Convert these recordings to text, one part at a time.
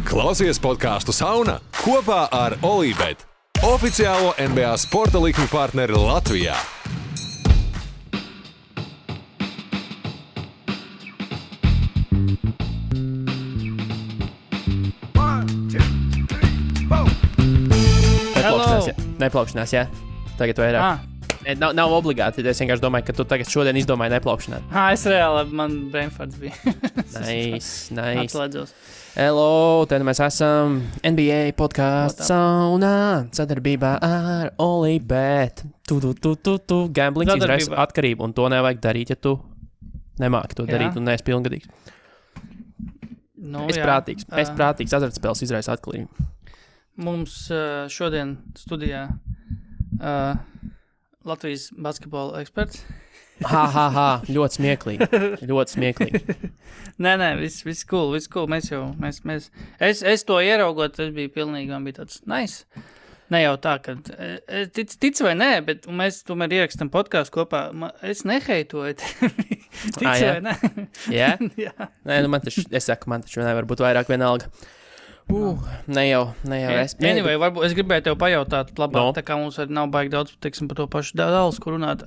Klausies podcastu Sauna kopā ar Olībet, oficiālo NBA sporta likmi partneri Latvijā. Neplaukšanās, jā. Tagad vairāk. Nav obligāti, es vienkārši domāju, ka tu tagad šodien izdomāji neplaukšanāt. Es reāli, man brainfarts bija. Nice. Atslēdzos. Hello, tad mēs esam NBA podcasts Saunā sadarbībā ar Olībet. Gamblings izraisa atkarību, un to nevajag darīt, ja tu nemāki to darīt un neesi pilngadīgs. Es prātīgs, azartspēles izraisa atkarību. Mums šodien studijā Latvijas basketbola eksperts. Ļoti smieklīgi. Nē, viss cool. Es to ieraugot, tas bija pilnīgi, man bija tāds nice. Ne jau tā, ka tic vai nē, bet mēs tomēr ierakstam podcastu kopā. Es neheitoju tevi. Tic vai nē? Jā? Nē, man taču nevar būt vairāk vienalga. Ne jau. Anyway, varbūt es gribēju tev pajautāt labāk, tā kā mums nav baigi daudz, teiksim, par to pašu dāls, kur runāt.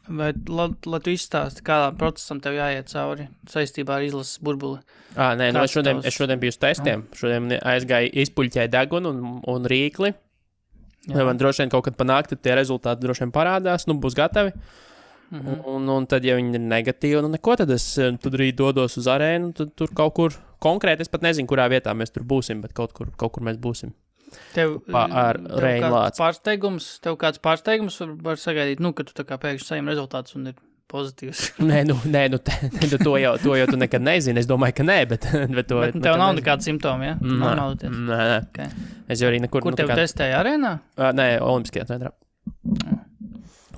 Vai tu izstāsti, kādā procesam tev jāiet cauri saistībā ar izlases burbuli? Es šodien biju uz testiem. Šodien aizgāju izpuļķēju degunu un rīkli. Man droši vien kaut kad panākt, tie rezultāti droši vien parādās, būs gatavi. Un tad, ja viņi ir negatīvi, neko, tad es arī dodos uz arēnu, tad tur kaut kur konkrēti, es pat nezinu, kurā vietā mēs tur būsim, bet kaut kur mēs būsim. Tev kāds pārsteigums var sagaidīt, ka tu tā kā pēkšņi saņem rezultātus un ir pozitīvs. Nē, to jau tu nekad nezini, es domāju, ka nē, bet to... Bet tev nav nekāda simptoma, ja? Nē. Okay. Es jau arī nekur... Kur tev testēja arēnā? Nē, Olimpiskajā centrā.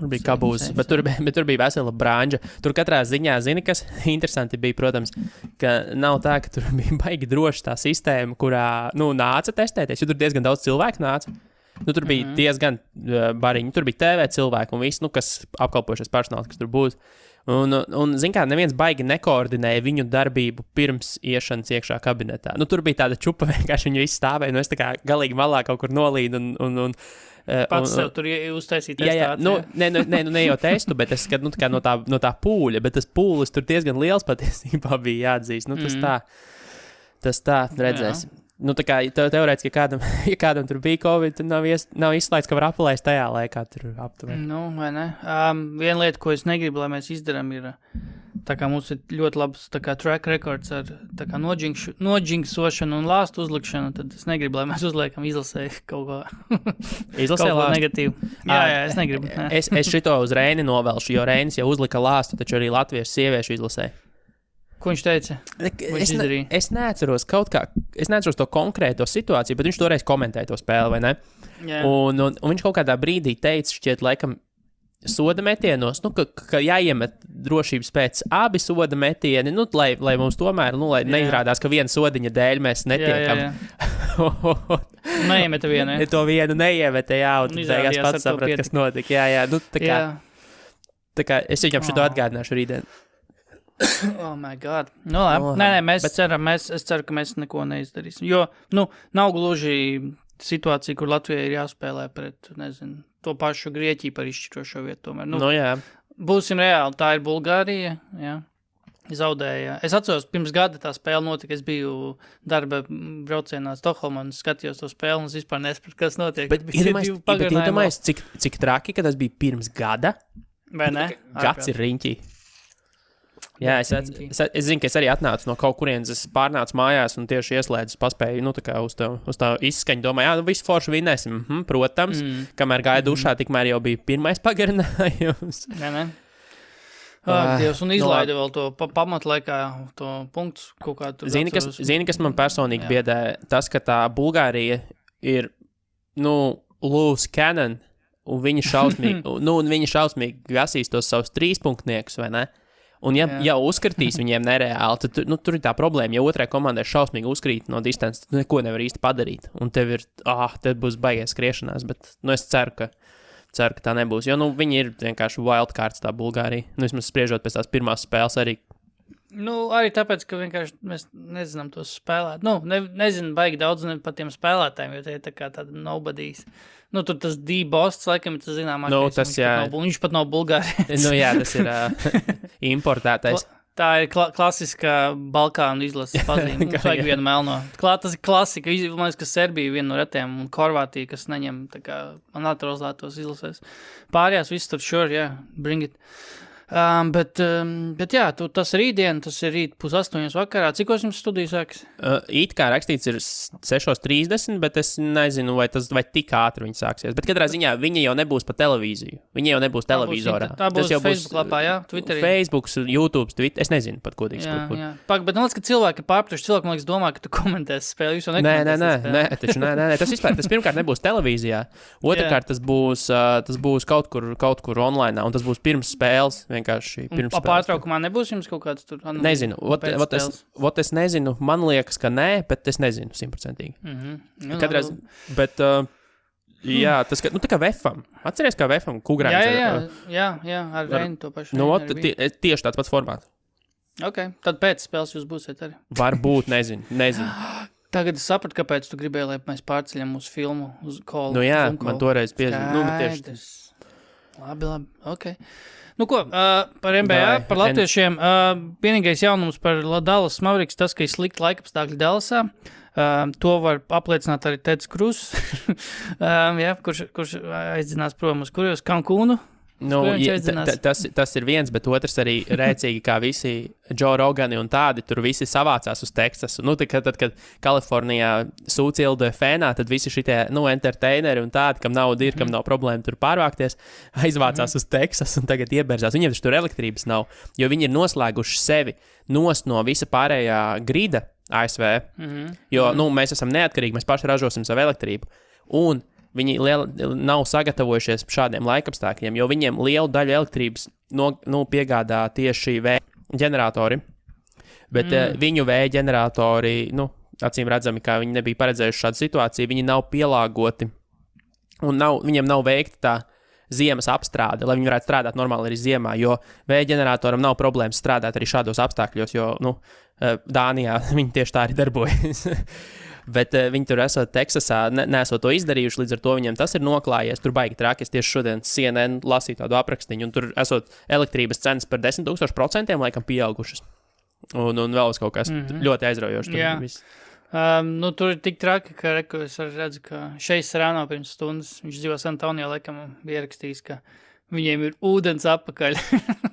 Tur bija kabūs, bet tur bija vesela brāņģa. Tur katrā ziņā, zini, kas interesanti bija, protams, ka nav tā, ka tur bija baigi droši tā sistēma, kurā, nāca testēties, jo tur diezgan daudz cilvēku nāca. Tur bija diezgan bariņi, tur bija TV cilvēki un viss, kas apkalpojušies personāls, kas tur būs. Un zin kā, neviens baigi nekoordinēja viņu darbību pirms iešanas iekšā kabinetā. Tur bija tāda čupa, vienkārši viņi visi stāvēja, es tā kā galīgi malā kaut kur nolīdu un pats sev tur uztaisīt testāciju. Ne jau testu, bet es skatu, no tā pūļa, bet tas pūlis tur diezgan liels patiesībā bija jāatzīst. Tas tā, redzēs. Tā kā teorētiski, ja kādam tur bija Covid, tad nav izslēgts, ka var apelēst tajā laikā tur aptuveni. Vai ne? Viena lieta, ko es negribu, lai mēs izdarām, ir, tā kā mums ir ļoti labs track records ar noģinksošanu un lāstu uzlikšanu, tad es negribu, lai mēs uzliekam izlasēju kaut ko. Izlasēju kaut ko negatīvu. Jā, es negribu. Es šito uz Reini novelšu, jo Reinis jau uzlika lāstu, taču arī latviešu sieviešu izlasēju. Ko viņš teica? Es neatceros to konkrēto situāciju, bet viņš toreiz komentēja to spēli, vai ne? Yeah. Un viņš kaut kādā brīdī teica, šķiet, laikam, soda metienos, ka jāiemet drošības pēc abi soda metieni, lai mums tomēr, lai neizrādās, ka viena sodiņa dēļ mēs netiekam. Jā. Neiemeta vienu, ja? To vienu neiemeta, jā, un beigās pats saprat, kas notika. Jā. Tā kā es viņam šito atgādināšu rītdien. Oh my God. Labi. Nē, es ceru, ka mēs neko neizdarīsim. Jo, nav gluži situācija, kur Latvijai ir jāspēlē pret, to pašu Grieķiju par izšķirošo vietu tomēr. Jā. Būsim reāli, tā ir Bulgārija, jā. Zaudēja. Es atceros, pirms gada tā spēle notika, es biju darba braucienā Stokholmā un skatījos to spēli un es vispār nesapratu, kas notiek. Bet iedomājies, cik traki, ka tas bija pirms gada? Vai ne? Gads ir riņķī. Jā, es zinu, ka es arī atnācu no kaut kurienes, es pārnācu mājās un tieši ieslēdzu, paspēju, uz tā izskaņu, domāju, visu foršu vinnēsim, protams, kamēr gāja dušā, tikmēr jau bija pirmais pagarinājums. Ne. Dievs, un izlaida vēl to pamatlaikā, to punktus kaut kā tur. Zini, kas man personīgi biedē, tas, ka tā Bulgārija ir, loose cannon, un viņi šausmīgi gasīs tos savus 3-punktniekus, vai ne? Un ja uzskatīs viņiem nereāli, tad tur ir tā problēma, ja otrai komandai šausmīgi uzkrīt no distances, tad neko nevar īsti padarīt. Un tev būs baigais skriešanās, bet es ceru, ka tā nebūs. Jo viņi ir vienkārši wildcards tā Bulgārija. Vismaz spriežot pēc tās pirmās spēles arī Arī tāpēc, ka vienkārši mēs nezinām tos spēlēt. Nezinu baigi daudz par tiem spēlētājiem, jo tie ir tā kā tāda nobodies. Tur tas D-Bosts, laikam, tas zināmākais. Viņš pat nav Bulgārijas. Jā, tas ir importētais. Tā ir klasiskā Balkānu izlases pazīme. Vajag vienu melno. Tas ir klasika. Man liekas, ka Serbija viena no retiem un Horvātija, kas neņem tā kā naturalizētos izlasēs. Pārējās viss tur bring it. Bet jā, tas rītdien, tas ir rīt 7:30 vakarā. Cikos jums studijas sākas? It kā rakstīts ir 6:30, bet es nezinu, vai tik ātri viņi sāksies. Bet katrā ziņā viņi jau nebūs pa televīziju. Viņi jau nebūs televizorā. Tā būs Facebook lapā, jā? Twitterī. Facebook, YouTube, Twitter. Es nezinu pat godīgi. Jā. Bet man liekas, ka cilvēki ir pārpratuši. Cilvēki, man liekas, domā, ka tu komentēsi spēli. Jūs jau nekomentēsi spēli. Nē. Tas pirmkārt nebūs televīzijā. Otrakārt, tas būs kaut kur online, un tas būs pirms spēles. Pārtraukumā nebūs jums kaut kāds tur? Nezinu. Es nezinu. Man liekas, ka nē, bet es nezinu 100%. Bet, jā, tas tā kā VFam. Atceries, kā VFam Kugrāns? Jā, ar Reinu to pašu. Tieši tāds pats formāts. Ok, tad pēc spēles jūs būsiet arī. Varbūt, nezinu. Tagad es sapratu, kāpēc tu gribēji, lai mēs pārceļam mūsu filmu uz Call. Man toreiz piezīmē. Labi, ok. Par NBA, par latviešiem, vienīgais jaunums par Dallas Mavericks, tas, ka ir slikti laikapstākļi Dallasā, to var apliecināt arī Teds Krus, kurš aizdzinās prom uz kurjos Cancūnu. Tas ir viens, bet otrs arī rēcīgi, kā visi Joe Rogani un tādi, tur visi savācās uz Teksasu. Tad, kad Kalifornijā sūcilda fēnā, tad visi šitie, entertaineri un tādi, kam nauda ir, kam nav problēma tur pārvākties, aizvācās uz Teksasu un tagad ieberzās. Viņiem taču tur elektrības nav, jo viņi ir noslēguši sevi nost no visa pārējā grida ASV, jo, mēs esam neatkarīgi, mēs paši ražosim savu elektrību. Un viņi nav sagatavojušies šādiem laikapstākļiem, jo viņiem lielu daļu elektrības piegādā tieši vēja ģeneratori. Bet viņu vēja ģeneratori, acīm redzami, kā viņi nebija paredzējuši šādu situāciju, viņi nav pielāgoti un viņiem nav veikta tā ziemas apstrāde, lai viņi varētu strādāt normāli arī ziemā, jo vēja ģeneratoram nav problēmas strādāt arī šādos apstākļos, jo Dānijā viņi tieši tā arī darbojas. Bet viņi tur esot Teksasā, nesot to izdarījuši, līdz ar to viņiem tas ir noklājies. Tur baigi traki, es tieši šodien CNN lasīju tādu aprakstiņu, un tur esot elektrības cenas par 10,000% laikam pieaugušas. Un vēl kaut kas ļoti aizraujošs. Tur ir tik traki, ka es redzu, ka Šeis Serrano pirms stundas, viņš dzīvo San Antonio, laikam bija ierakstījis, ka viņiem ir ūdens apakaļ.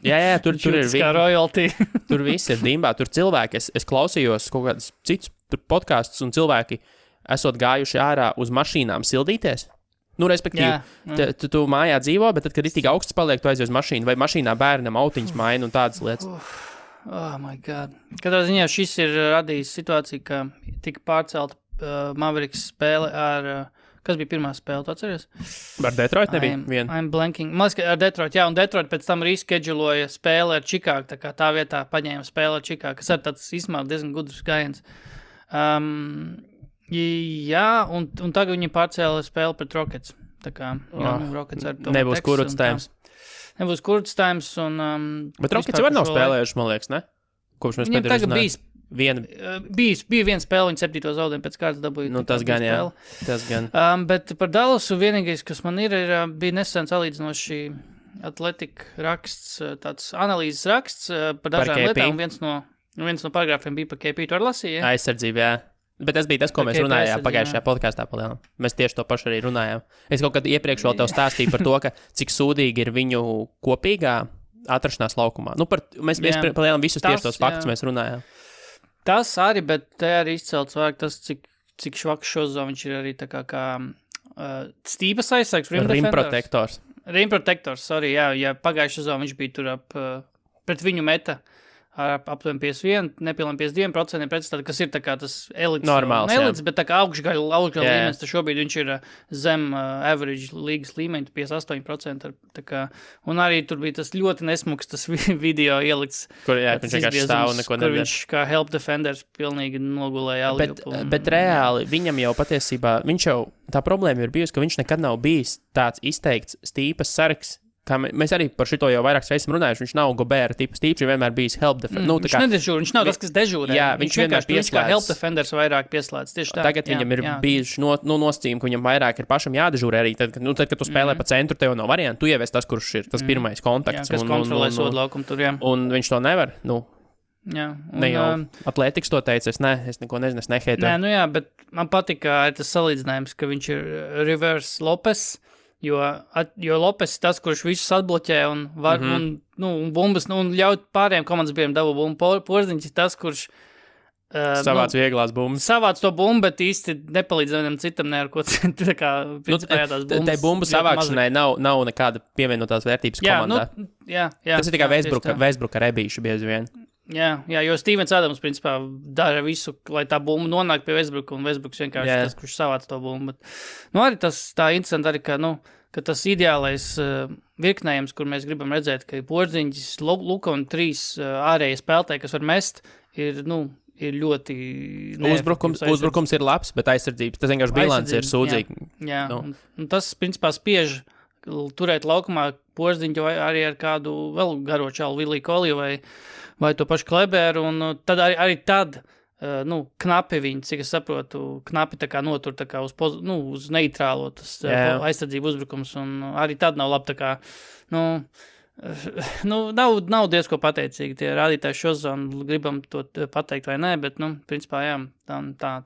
jā, tur ir kā royalty. Tur viss ir dimbā, tur cilvēki, es klausījos kaut kādus citus podkastus, un cilvēki esot gājuši ārā uz mašīnām sildīties. Respektīvi, tu mājā dzīvo, bet tad, kad ir tik augsts paliek, tu aizies uz mašīnu, vai mašīnā bērnam autiņas maina un tādas lietas. Oh my God. Katrā ziņā šis ir radījis situāciju, ka tika pārcelta Mavericks spēle ar... Kas bija pirmā spēle, tu atceries? Ar Detroit nebija viena. I'm blanking. Man liekas, ar Detroit, jā, un Detroit pēc tam rescheduloja spēli ar Chicago, tā kā tā vietā paņēma spēli ar Chicago, kas ir tāds izmēr diezgan gudrs gājiens. Jā, un tagad viņi pārcēla spēli pret Rockets. Tā kā, Rockets ar to nebūs kurts-times. Nebūs kurts-times un... Bet Rockets jau nav spēlējuši, man liekas, ne? Kopš mēs pēdējos runājam. Bija viena spēle, viņa 7. zaudējumu pēc kārtas dabūja. Tas gan, jā. Tas gan. Bet par Dallasu vienīgais, kas man bija nesen salīdzinoši atletika raksts, tāds analīzes raksts par dažām lietām. Viens no paragrāfiem bija par KP. Tu arī lasīji, ja? Aizsardzība, jā. Bet tas bija tas, ko mēs runājām pagājušajā podkāstā palielam. Mēs tieši to pašu arī runājām. Es kaut kad iepriekš vēl tev stāstīju par to, ka cik sūdīgi ir viņu kopīgā atrašanās laukumā. Mēs palielam visus tieši tos faktus mēs runājām. Tas arī, bet te arī izcelts vajag tas, cik švaks šozo viņš ir arī tā kā stīpas aizsargs. Rimprotektors. Rimprotektors, sorry, jā, ja pagājušā sezonā viņš bija tur pret viņu meta ar aptuveni 51, nepilniem 52%, pretstāt, kas ir tā kā tas elites, normāls, elites, bet tā kā augšgaļa līmenis, tad šobrīd viņš ir zem average līgas līmeņa, 58%, tā kā, un arī tur bija tas ļoti nesmuks, tas video ielikts, kur, jā, viņš vienkārši stāv un neko nedara. Kur viņš kā help defenders pilnīgi nogulēja alību. Bet reāli, viņam jau patiesībā, tā problēma ir bijusi, ka viņš nekad nav bijis tāds izteikts stīpas sargs, kā mēs arī par šito jau vairākas reizes runājuši, viņš nav Gobert tips, viņš vienmēr bijis help defender. Viņš nedežūra, viņš nav tas, kas dežūrē. Jā, viņš vienkārši viņš kā help defenders vairāk pieslēdz. Tieši tā. Tagad viņam ir bijuši nosacījumi, ka viņam vairāk ir pašam jādežūrē arī. Tad, kad tu spēlē pa centru, tev nav variantu, tu ievies tas, kurš ir tas pirmais kontakts. Kas kontrolē sodu laukumu tur, jā. Un viņš to nevar, Jā, ne jau atlētikas to teica, es neko nezinu, es neheitoju. Nē, jā, bet man patīk tas salīdzinājums, ka viņš ir reverse Lopes, jo Lopes ir tas, kurš visus atbloķē un var, un bumbas, un ļaut pārējiem komandas biedriem dabu bumbu. Porziņš ir tas, kurš savāc vieglās bumbas. Savāc to bumbu, bet īsti nepalīdz vienam citam ne ar ko citu. Tā kā, principā, tās bumbas. Tai bumbu savākšanai nav nekāda pievienotās vērtības komandā. Jā. Tas ir tikai Westbrook ar ebīšu bieži vien. Jā, jo Stevens Adams, principā, dara visu, lai tā bumba nonāk pie Westbrooka, un Westbrooks vienkārši tas, kurš savāc to bumbu. Bet, arī tas tā interesanti arī, ka tas ideālais virknējums, kur mēs gribam redzēt, ka Porziņģis, Luka un 3 ārējie spēlētāji, kas var mest, ir ļoti Uzbrukums ir labs, bet aizsardzības, tas vienkārši bilants ir sūdzīgi. Jā. Un tas, principā, spiež turēt laukumā Porziņģu arī ar kādu vēl garo čalu Viliju Koliju vai to pašu Kleberu, un tad arī tad, knapi viņi, cik es saprotu, knapi tā kā notur tā kā uz neitrālo tas aizsardzību uzbrukums, un arī tad nav labi tā kā, nav diezko pateicīgi tie rādītāji šo zonu, gribam to pateikt vai nē, bet, principā, jā,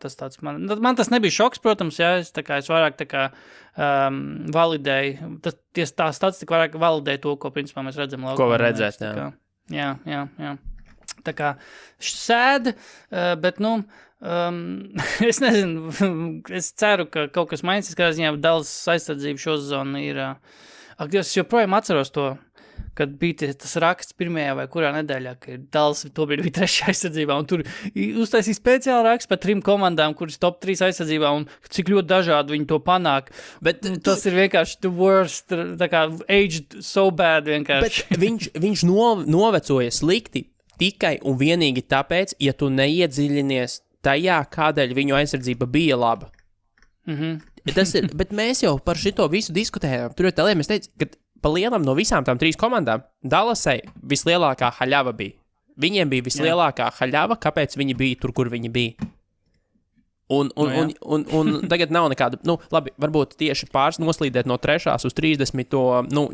tas tāds man tas nebija šoks, protams, jā, es vairāk tā kā validēju, tā statistika vairāk validēja to, ko, principā, mēs redzam laukumā. Ko var redzēt, jā. Jā. Tā kā sēd, bet, es nezinu, es ceru, ka kaut kas mainīsies, kā ziņā Dallas aizsardzība šo zonu ir. Es joprojām atceros to, kad bija tas raksts pirmajā vai kurā nedēļā, ka Dallas tobrīd bija 3. aizsardzībā, un tur uztaisīja speciāli raksts par 3 komandām, kuras top 3 aizsardzībā, un cik ļoti dažādi viņi to panāk. Bet tas ir vienkārši the worst, tā kā aged so bad vienkārši. Bet viņš novecoja slikti tikai un vienīgi tāpēc, ja tu neiedziļinies tajā, kādēļ viņu aizsardzība bija laba. Tas ir, bet mēs jau par šito visu diskutējām. Tur jau tā lieta, mēs teicām, ka pa lielam no visām tām 3 komandām Dallasai vislielākā haļava bija. Viņiem bija vislielākā haļava, kāpēc viņi bija tur, kur viņi bija. Un tagad nav nekāda, labi, varbūt tieši pāris noslīdēt no 3. uz 30.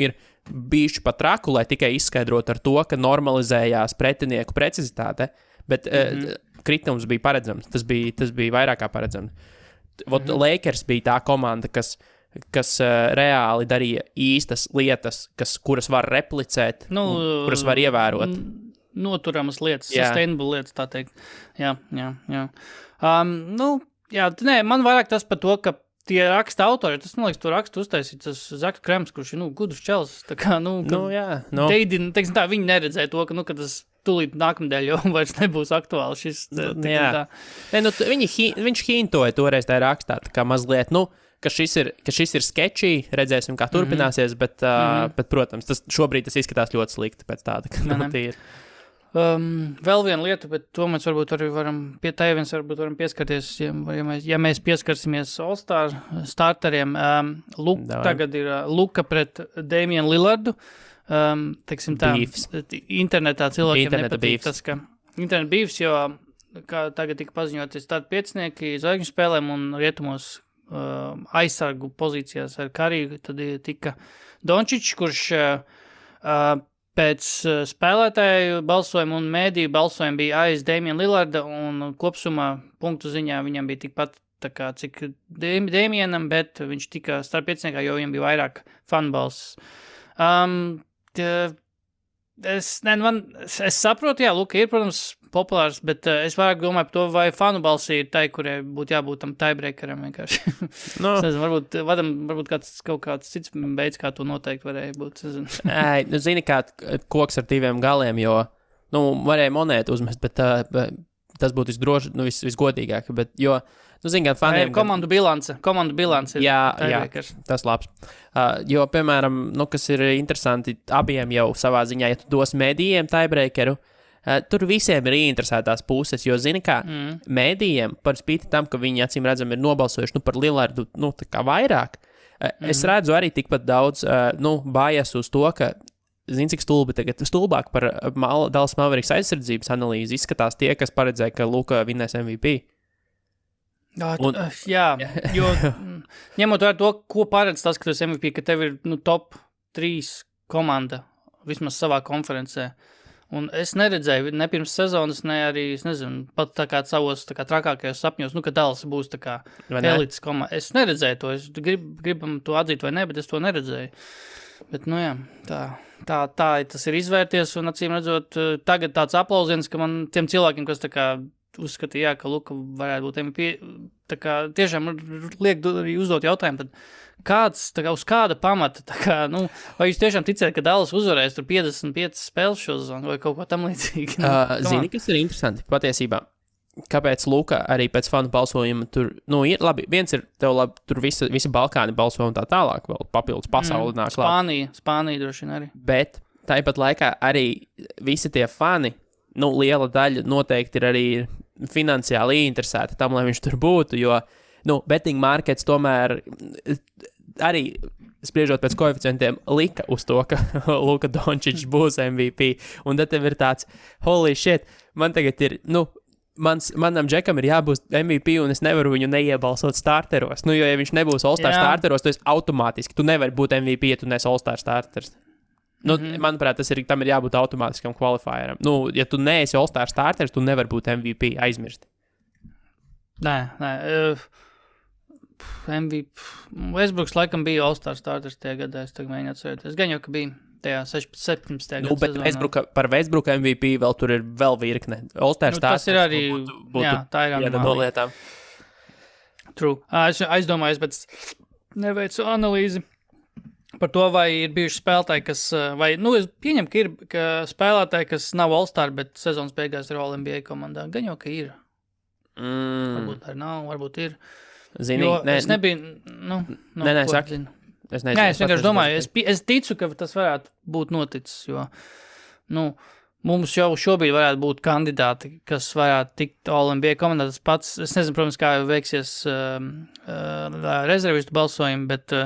Ir bijuši pat traku, lai tikai izskaidrot ar to, ka normalizējās pretinieku precizitāte, bet kritums bija paredzams. Tas bija vairāk kā paredzams. Lakers bija tā komanda, kas reāli darīja īstas lietas, kuras var replicēt, kuras var ievērot. Noturamas lietas, sustainable lietas, tā teikt. Jā. Man vairāk tas par to, ka tie raksta autori, tas, man liekas, to rakstu uztaisīt, tas Zaks Krems, kurš ir, gudrs čels, tā kā, teiksim tā, viņi neredzēja to, ka tas tūlīt nākamdēļ jau vairs nebūs aktuāli šis. Viņš hintoja toreiz tajā rakstā, tā kā mazliet, ka šis ir sketčī, redzēsim, kā turpināsies, bet, protams, šobrīd tas izskatās ļoti slikti pēc tāda, ka tīri. Vēl viena lieta, bet to mēs varbūt arī varam pieskarties, ja mēs pieskarsimies All-Star starteriem. Tagad ir Luka pret Damian Lillardu. Teiksim tā, internetā cilvēkiem nepatīk tas, ka internet beefs, jo kā tagad tika paziņoties starp 5 zvaigžņu spēlēm un rietumos aizsargu pozīcijās ar Kariju, tad tika Dončičs, kurš pēc spēlētāju balsojumu un mēdīju balsojumu bija aiz Damian Lillarda, un kopsumā punktu ziņā viņam bija tikpat tā kā cik Damianam, bet viņš tika starp 5, jo viņam bija vairāk fanbalss. Es saprotu, jā, Luka ir, protams, populārs, bet es vairāk domāju par to, vai fanu balsī ir tai, kurai būtu jābūt tam tiebreakeram vienkārši. Es nezinu, varbūt kaut kāds cits veids, kā to noteikti varēja būt. Zini, kā koks ar 2 galiem, jo, varēja monētu uzmest, bet tas būtu visgodīgāk, bet, jo, zini, gan faniem... Komandu bilance ir tiebreakers. Tas labs. Jo, piemēram, kas ir interesanti, abiem jau savā ziņā, ja tu dos mēdījiem tiebreakeru, tur visiem ir ieinteresētās puses, jo, zini kā, mēdījiem, par spīti tam, ka viņi acīm redzam ir nobalsojuši par Lillardu, tā kā vairāk, Es redzu arī tikpat daudz bājas uz to, ka, zini, cik stulbāk par Dallas Mavericks aizsardzības analīzi izskatās tie, kas paredzēja, ka Luka vinnēs MVP. Jā, jo ņemot vērā to, ko paredz tas, ka tu esi MVP, ka tev ir top 3 komanda vismaz savā konferencē. Un es neredzēju ne pirms sezonas, ne arī, es nezinu, pat tā kā savos tā kā trakākajos sapņos, ka Dallas būs tā kā elites komanda. Es neredzēju to, es gribam to atzīt vai ne, bet es to neredzēju. Bet, jā, tā tas ir izvērties, un acīm redzot, tagad tāds aplausiens, ka man tiem cilvēkiem, kas tā kā uzskatīja, ka Luka varētu būt MVP, tā kā tiešām liek arī uzdot jautājumu, tad kāds, tā kā uz kāda pamata, tā kā, vai jūs tiešām ticēt, ka Dallas uzvarēs tur 55 spēles šo sezonu vai kaut ko tam līdzīgi? Zini, kas ir interesanti patiesībā? Kāpēc Luka arī pēc fanu balsojuma tur, ir labi, viens ir tev labi, tur visi Balkāni balso un tā tālāk, vēl papildus pasauli nāk klāt. Spānija droši vien arī. Bet tāpat laikā arī visi tie fani, liela daļa noteikti ir arī finansiāli interesēti tam, lai viņš tur būtu, jo, betting markets tomēr arī spriežot pēc koeficientiem lika uz to, ka Luka Dončičs būs MVP, un tad tev ir tāds, holy shit, man tagad ir, manam džekam ir jābūt MVP, un es nevaru viņu neiebalsot starteros, jo, ja viņš nebūs All-Star starteros, tu esi automātiski, tu nevari būt MVP, ja tu nes All-Star starters. Manuprāt, tam ir jābūt automātiskam qualifieram. Ja tu neesi All-Star starters, tu nevari būt MVP, aizmirst. Nē. MVP. Westbrooks laikam bija All-Star starters tajā gadā, es tagad mēģinu atcerēties. Gan jau, ka bija tajā 17. gadā. Bet par Westbrooka MVP vēl tur ir vēl virkne. All-Star starters. Tas ir arī, tā ir viena no lietām. True. Es aizdomājos, bet neveicu analīzi par to, vai ir bijuši spēlētāji, kas, es pieņemu, ka ir ka spēlētāji, kas nav All-Star, bet sezonas beigās ir All-NBA komandā. Gan jau, ka ir. Varbūt arī nav, varbūt ir. Zini, es nebiju, saki. Es vienkārši domāju, es ticu, ka tas varētu būt noticis, jo, mums jau šobrīd varētu būt kandidāti, kas varētu tikt All-NBA komandā. Tas pats, es nezinu, protams, kā veiksies rezervistu balsojumi, bet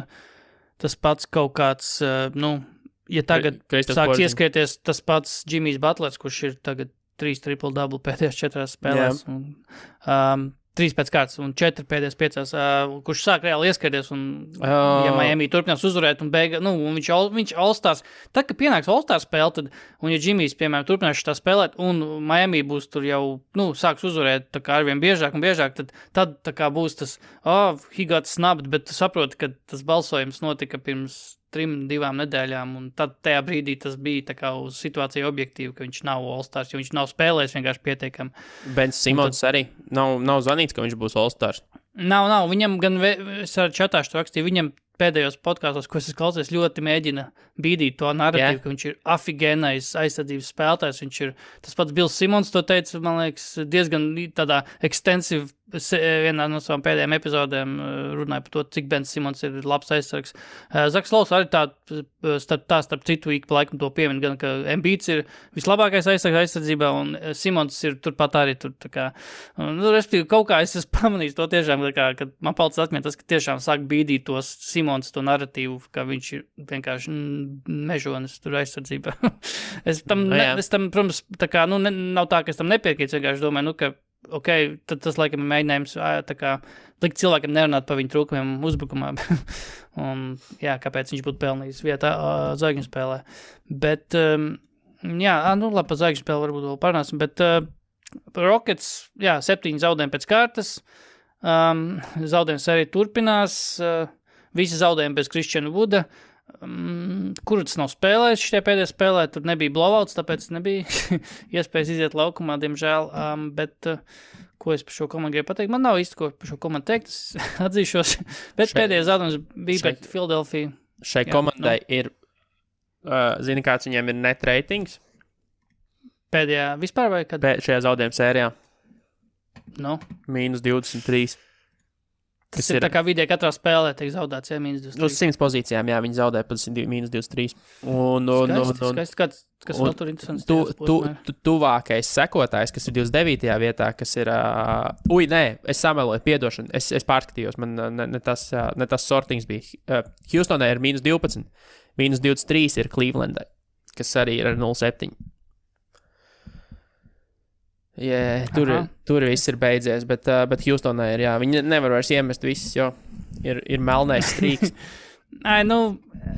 tas pats kaut kāds, ja tagad sāks ieskrieties tas pats Jimmys Butlers, kurš ir tagad 3 triple-double pēdējās 4 spēlēs, un 3 pēc kārtas un 4 pēdējās 5, kurš sāk reāli ieskrieties, un ja Miami turpinās uzvarēt, un un viņš All-Stars, tad, kad pienāks All-Stars spēle, tad, un ja Jimmys, piemēram, turpinās tā spēlēt, un Miami būs tur jau, sāks uzvarēt tā kā arvien biežāk un biežāk, tad tā kā būs tas, he got snubbed, bet tu saproti, ka tas balsojums notika pirms 3-2 nedēļām, un tad tajā brīdī tas bija tā kā uz situāciju objektīvi, ka viņš nav All-Stars, jo viņš nav spēlējis vienkārši pietiekami. Ben Simons arī nav zvanīts, ka viņš būs All-Stars. Nav, viņam gan, es ar čatāšu rakstīju, viņam pēdējos podkāstos, ko es klausies, ļoti mēģina bīdīt to narratīvu, ka viņš ir afigēnais aizsardzības spēlētājs, viņš ir, tas pats Bills Simons to teica, man liekas, diezgan tādā extensive, vienā no savām pēdējām epizodēm runāja par to, cik Ben Simons ir labs aizsargs. Zaks Lows arī starp citu ik pa laikam to piemin, gan ka Embiids ir vislabākais aizsargs aizsardzībā, un Simons ir turpat arī tur, tā kā, respektīvi, kaut kā es esmu pamanījis to tiešām, tā kā, kad man palicis atmiņā tas, ka tiešām sāk bīdīt tos Simons to narratīvu, ka viņš ir vienkārši mežonis tur aizsardzībā. es tam, protams, tā kā, nav tā, ka es tam nepiekrītu, vienkārši domāju, ka tad tas, laikam, ir mēģinājums tā kā likt cilvēkam nerunāt par viņu trūkumiem uzbrukumā. Un, kāpēc viņš būtu pelnījis vietā zvaigžņu spēlē. Bet, labi, par zvaigžņu spēli varbūt vēl parunāsim, bet Rockets, 7 zaudējumi pēc kārtas, zaudējums arī turpinās, visi zaudējumi bez Christiana Wooda, kurus nav spēlējis šitie pēdējā spēlē, tur nebija blowouts, tāpēc nebija iespējas iziet laukumā, diemžēl, bet ko es par šo komandu gribu pateikt? Man nav īsti ko par šo komandu teikt, es atzīšos, bet pēdējā zaudējums bija pret Philadelphia. Šai komandai ir, zini, kāds viņiem ir net ratings? Pēdējā vispār vai kad? Šajā zaudējuma sērijā. No. -23. Tas ir tā kā vidē katrā spēlē tiek zaudēts, ja -23. Uz 100 pozīcijām, jā, viņi zaudē pat -23. Skaisti, kas vēl tur interesants. Tuvākais sekotājs, kas ir 29. vietā, kas ir... es sameloju, piedošanu, es pārskatījos, man ne tas sortings bija. Houstonai ir -12, -23 ir Clevelandai, kas arī ir ar 0,7. Yeah, tur viss ir beidzies, bet Houstonai ir, jā, viņi nevar vairs iemest visus, jo ir melnais strīks.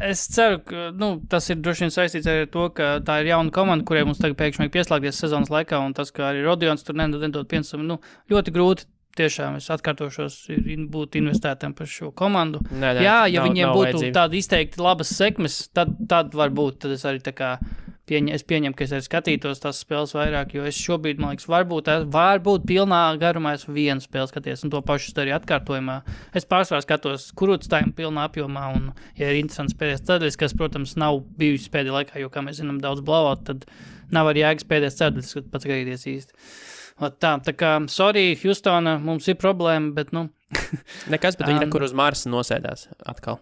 Es ceru, ka tas ir droši vien saistīts ar to, ka tā ir jauna komanda, kurai mums tagad pēkšņi pieslēgties sezonas laikā, un tas, ka arī Rodions tur nedod pienesumu, ļoti grūti. Tiešām es atkārtošos, būt investētam par šo komandu. Ja viņiem būtu tādi izteikti labas sekmes, tad varbūt, tad es arī tā kā pieņemu, ka es arī skatītos tās spēles vairāk, jo es šobrīd, man liekas, varbūt pilnā garumā es vienu spēli skaties, un to pašu arī atkārtojumā. Es pārsvarā skatos kurūtstājiem pilnā apjomā, un, ja ir interesants pēdējais ceturdaļas, kas, protams, nav bijusi pēdējā laikā, jo, kā mēs zinām, daudz blowout, tad nav arī jēgas pēdējais ceturdaļas, kad pats gaidīties īsti. Tā kā, sorry, Houstona, mums ir problēma, bet, Nekas, bet viņi kur uz Marsa nosēdās atkal.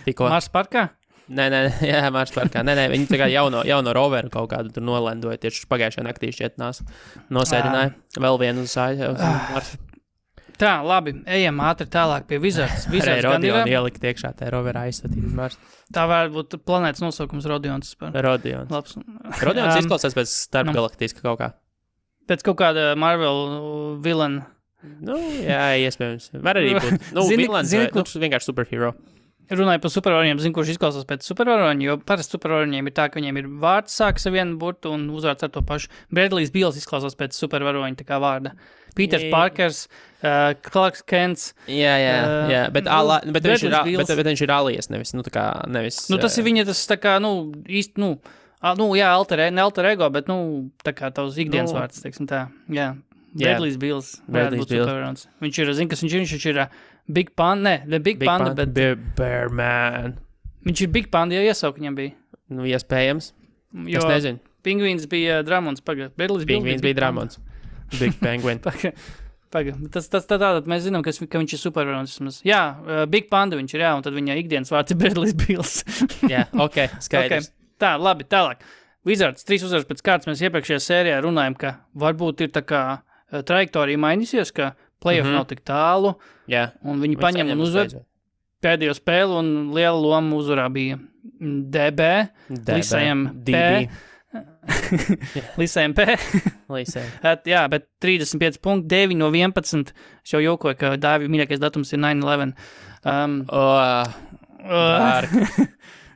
Tikko. Marsa parkā? Nē, jā, Marsa parkā. Nē, viņi tā kā jauno roveru kaut kādu tur nolendoja, tieši pagājušajā naktī šķiet nosēdināja vēl vienu uz Marsa. Tā, labi, ejam ātri tālāk pie Wizards. Rodionu ielikt iekšā, tā roverā aizsatīt uz Marsa. Tā varētu būt planētas nosaukums Rodions. Rodions izklausās pēc starpgalaktiska kaut kā. Pēc kaut kāda Marvel villain. Jā, iespējams. Var arī būt. Villains vienkārši superhero. Runāju par supervaroņiem, zinu, kurš izklausās pēc supervaroņiem, jo parasti supervaroņiem ir tā, ka viņiem ir vārds sāks ar vienu burtu un uzvārds ar to pašu. Bradley's Bills izklausās pēc supervaroņa tā kā vārda. Peters Parkers, Clarks Kents. Jā, bet viņš ir alias, nevis, nevis. Tas ir viņa, tas tā kā, īsti, alter ego, bet, tā kā tavs ikdienas vārds, teiksim tā, jā. Bradley's Bills. Viņš ir, zin, kas viņš ir Big Panda, Big Panda, bet... Bear Man. Viņš ir Big Panda, ja iesaukt viņam bija. Iespējams. Es nezinu. Pingvīns bija Dramons, pagad. Pingvīns bija Dramons. Big Penguin. Pagad. Tas tātad mēs zinām, ka viņš ir supervaronis. Jā, Big Panda viņš ir, jā, un tad viņa ikdienas vārds ir Bradley's Bills. Jā, skaidrs. Tā, labi, tālāk. Wizards, 3 uzvaras pēc kārtas mēs iepriekšējā sērijā runājam, ka varbūt ir tā kā trajektorija mainīsies, ka playoff nav tik tālu, un viņi paņem un uzvar pēdējo spēli, un liela loma uzvarā bija DB. Lisējam P. Jā, bet 35 punkti, 9 no 11. Es jau jokoju, ka Dāvi mīļākais datums ir 9/11.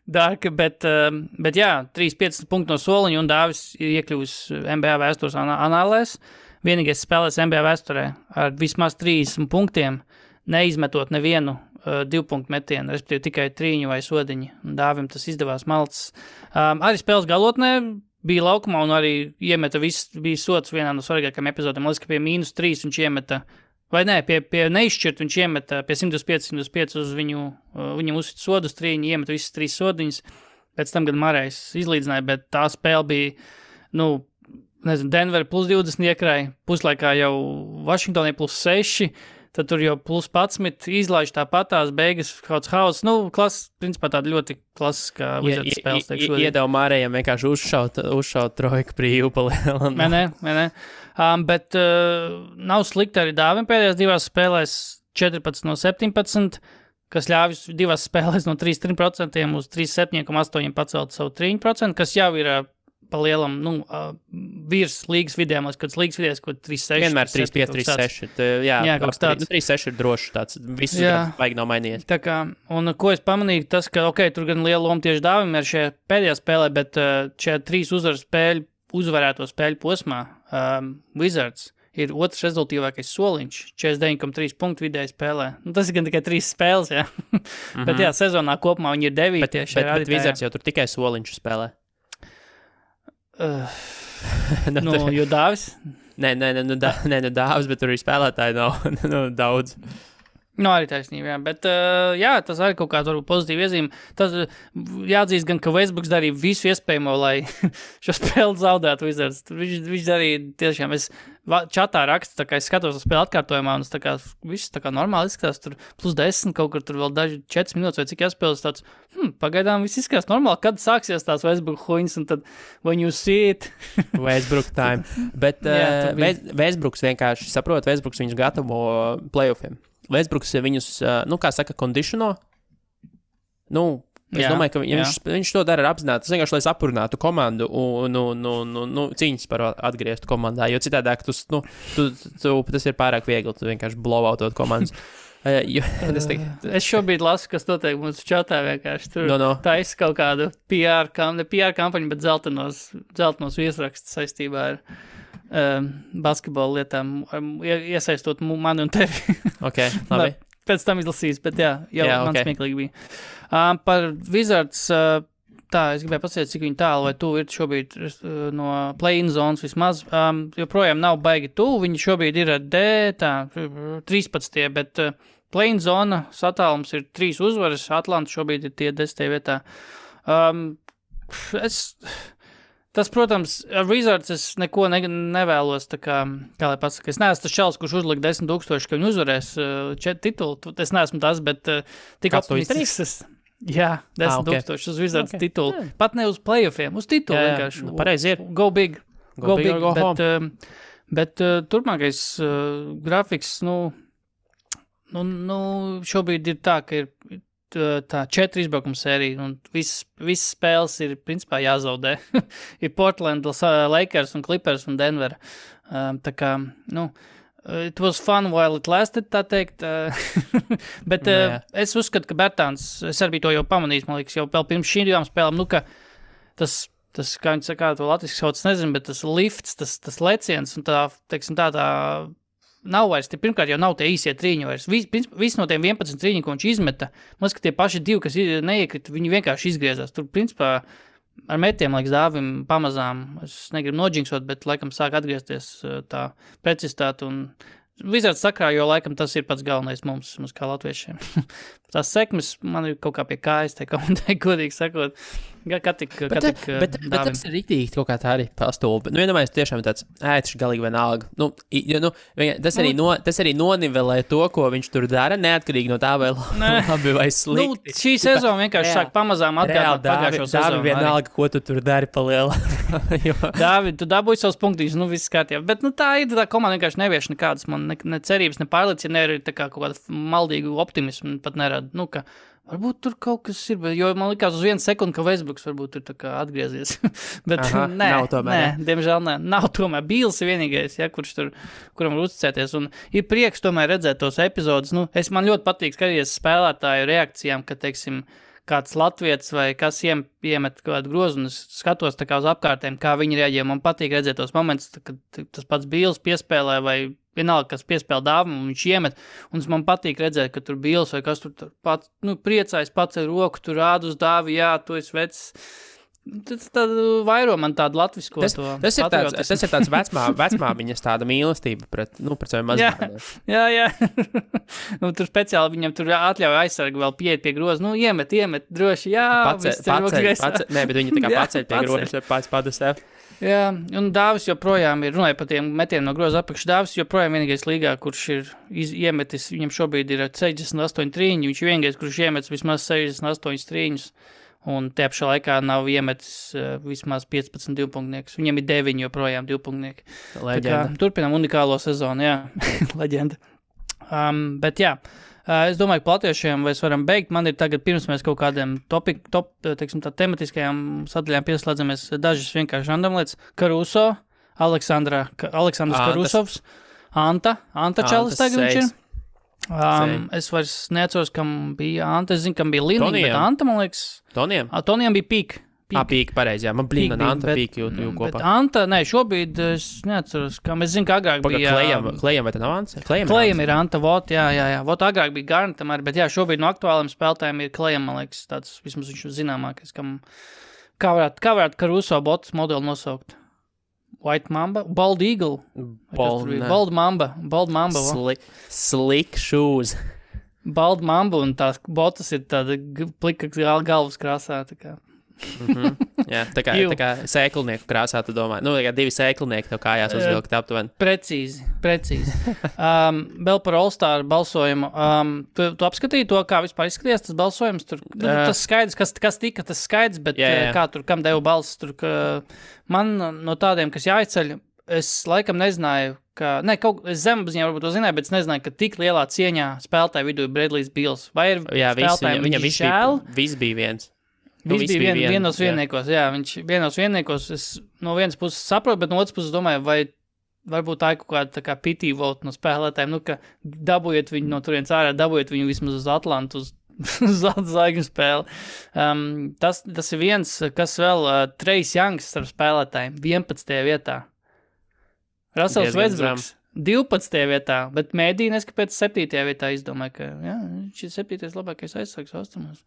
Dark, bet jā, 3-5 punkti no soliņa, un Dāvis ir iekļuvis NBA vēstures anālēs. Vienīgais spēlēs NBA vēsturē ar vismaz 30 punktiem, neizmetot nevienu 2-punktu metienu, respektīvi tikai 3 vai sodiņi. Un Dāvim tas izdevās malts. Arī spēles galotnē bija laukumā un arī iemeta bija sots vienā no svarīgākajām epizodēm. Liekas, ka pie -3 viņš iemeta, vai nē, pie neizšķirt viņš iemeta pie 125 uz viņam uzsit sodu uz 3, iemeta visas 3 sodiņas. Pēc tam, kad Marais izlīdzināja, bet tā spēle bija, Denver plus 20 iekrāja, puslaikā jau Vašingtonai plus 6, tad tur jau plus 11, izlaiž tāpatās, beigas kauds hauss, principā tāda ļoti klasiskā Wizards spēles. Iedeva Mārējam vienkārši uzšaut trojku brīvu palielam. Nē. Bet nav slikti arī Dāvim pēdējās 2 spēlēs 14 no 17, kas ļāvis 2 spēlēs no 3% uz 37,8 pacelt savu 3%, kas jau ir palielam, virs līgas vidējām, kad līgas vidējās, ko 3-6. Vienmēr 3-5, 3-6. Jā, kaut tāds. 3-6 ir drošs tāds. Visu vajag nav mainījies. Tā kā, un ko es pamanīju, tas, ka, tur gan liela loma tieši Dāvim ir šajā pēdējā spēlē, bet šajā 3 uzvarēto spēļu posmā Wizards ir otrs rezultīvākais soliņš, 49,3 punktu vidēji spēlē. Tas ir gan tikai 3 spēles, jā. Bet jā, sezonā kopumā viņi ir 9. Bet Wizards jau tur tikai soliņš spēlē. Jo Dāvis? Nē, Dāvis, bet tur arī spēlētāji nav daudz. Nu, arī taisnība, jā. Bet, tas arī kaut kāda varbūt pozitīva iezīme. Tas jāatzīst gan, ka Westbrooks darīja visu iespējamo, lai šo spēli zaudētu Wizards. Viņš darīja tiešām, es čatā rakstu, tā kā es skatos uz spēli atkārtojumā, un tas tā kā viss tā kā normāli izskatās, tur plus 10, kaut kur tur vēl daži 4 minūtes vai cik jāspēlēs tāds, pagaidām viss izskatās normāli, kad sāksies tās Westbrook huņas, un tad when you see it. Westbrook time. Bet Westbrooks vienkārši saprot, Westbrooks viņus gatavo playoffiem. Westbrooks viņus, kā saka, kondiciono. Es domāju, ka viņš to dara ar apzināti. Tas vienkārši, lai sapurinātu komandu un cīņas par atgrieztu komandā. Jo citādāk tas ir pārāk viegli. Tu vienkārši blowoutot komandas. Es šobrīd lasu, kas notiek mūsu čatā vienkārši. Tur taisa kaut kādu PR kampaņu, bet zeltenos viesrakstus saistībā ar basketbola lietām, iesaistot mani un tevi. Ok, labi. Pēc tam izlasīs, bet man smieklīgi bija. Par Wizards, es gribēju pasēst, cik viņi tālu vai tuvu ir šobrīd no play-in zonas vismaz. Joprojām nav baigi tuvu, viņi šobrīd ir 13, bet play-in zona satālums ir 3 uzvaras, Atlanta šobrīd ir tie 10. vietā. Tas, protams, ar Wizards es neko nevēlos, tā kā lai pasaka, es neesmu tas čels, kurš uzlika 10,000, ka viņi uzvarēs titulu, es neesmu tas, bet tik optimistisks. Jā, 10,000 uz Wizards titulu. Pat ne uz playoffiem, uz titulu vienkārši. Pareizi ir. Go big, go home. Bet turpmākais grafiks, šobrīd ir tā, ka ir tā 4 izbraukuma sērija, un visas spēles ir, principā, jāzaudē. Ir Portland, Lakers un Clippers un Denver. Tā kā, it was fun while it lasted, tā teikt. Bet es uzskatu, ka Bertāns, es arī to jau pamanījis, man liekas, jau vēl pirms šīm 2 spēlēm, ka tas, kā viņi saka, to latviski sauc, nezinu, bet tas lifts, tas leciens un tā, teiksim, tā nav vairs, pirmkārt jau nav tie īsie trīņi vairs. Visi no tiem 11 trīņi, ko viņš izmeta, man liekas, ka tie paši 2, kas neiekrita, viņi vienkārši izgriezās. Tur, principā, ar metiem, liekas, Dāvim pamazām, es negribu nodžinksot, bet laikam sāk atgriezties tā precizitāte un Wizards sakrā, jo laikam tas ir pats galvenais mums kā latviešiem. Tās sekmes man ir kaut kā pie kājas, tā komentēja, godīgi sakot. Bet tas ir riktīgi kaut kā tā arī pastulbi. Iedomājies tiešām tāds ētiši galīgi vienalga. Tas arī nonivelē to, ko viņš tur dara, neatkarīgi no tā, vai labi vai slikti. Šī sezona vienkārši sāk pamazām atgādāt pagājušo sezonu. Dāvi vienalga, ko tu tur dari pa liela. Dāvi, tu dabūji savus punktiņus, viss kārtībā. Bet tā ir, tā komanda vienkārši nevieš nekādas man ne cerības, ne pārliecības, ne arī tā kā kaut kādu maldīgu optimismu pat nerada. Ka varbūt tur kaut kas ir, jo man likās uz 1 sekundi, ka Westbrooks varbūt ir tā kā atgriezies. Bet nav tomēr. Diemžēl nē. Nav tomēr. Bīls ir vienīgais, kuram var uzticēties. Un ir prieks tomēr redzēt tos epizodus. Man ļoti patīk skatīties spēlētāju reakcijām, ka, teiksim, kāds latvietis vai kas iemet kādu grozu, un es skatos tā kā uz apkārtēm, kā viņi reaģē. Man patīk redzēt tos momentus, kad tas pats Bīls piespēlē vai vienalga, kas piespēl Dāvam, un viņš iemet, un man patīk redzēt, ka tur Bīls vai kas tur pats, priecājas pats ar roku, tur rāda uz Dāvi, jā, tu esi vecs. Tad vairo man tādu latvisko tas ir tāds vecmāmiņas tāda mīlestība pret saviem mazbērniem. Jā. Tur speciāli viņam tur atļauj aizsargu vēl pieiet pie groza. Iemet, droši, jā. Nē, bet viņi tā kā paceļ pie groza, pats padasēv. Jā, un Dāvis joprojām ir, runāja par tiem metieniem no groza apakš, Dāvis joprojām vienīgais līgā, kurš ir iemetis, viņam šobrīd ir 68 trīņi, viņš ir vienīgais, kurš iemetis vismaz 68 trīņus. Un te apšā laikā nav iemetis vismaz 15 divpunktniekus. Viņam ir 9 joprojām divpunktnieki. Leģenda. Turpinām unikālo sezonu, jā. Leģenda. Bet jā, es domāju, ka latviešiem mēs varam beigt. Man ir tagad, pirms mēs kaut kādiem tematiskajām sadaļām pieslēdzamies, dažas vienkārši random lietas. Caruso, Aleksandrs Karusovs, Anta Čalis tagad viņš ir. Es vairs neatceros, kam bija Anta. Es zinu, kam bija Lina, bet Anta, man liekas... Tonijam bija Pīk. Pīk, pareizi, jā. Man blīna Anta Pīk jū kopā. Bet Anta, šobrīd es neatceros, kam es zinu, ka agrāk bija... Klejam vai tā nav Anta? Klejam ir Anta, jā. Vot agrāk bija Garnetam arī, bet jā, šobrīd no aktuāliem spēlētājiem ir Klejam, man liekas, tāds vismaz viņš zināmākais, kam... Kā varētu Caruso botas modeli nosaukt? White Mamba? Bald Eagle? Bald Mamba. Slick shoes. balda mamba un tās botas ir tāda plika galvas krāsā. Tā kā. Jā, tā kā sēklnieku krāsā, tu domā. Nu, kā 2 sēklnieki tev kājās uzvilkt aptuveni. Precīzi. Vēl par All-Star balsojumu. Tu apskatīji to, kā vispār izskatījās tas balsojums? Tur, tas skaidrs, kas tika, tas skaidrs, bet kā tur, kam devu balsis? Tur, man no tādiem, kas jāizceļ, es laikam nezināju, es zemapziņā varbūt to zināju, bet es nezināju, ka tik lielā cieņā spēlētāju vidū ir Bradley's Bills. Vai ir spēlētājiem viņa žēl? Viss bija viens. Viņš bija vienos vienniekos, viņš vienos vienniekos, es no vienas puses saprotu, bet no otras puses domāju, vai varbūt tā ir kaut kāda tā kā pity vote no spēlētājiem, ka dabūjiet viņu no turienes ārā, dabūjiet viņu vismaz uz Atlantu, uz zvaigžņu spēli. Tas ir viens, kas vēl Trace Youngs starp spēlētājiem 11. vietā. Russell Westbrooks 12. vietā, bet mēdī neskapēc 7. vietā izdomāja, ka viņš ir 7. labākais aizsargs austrumos.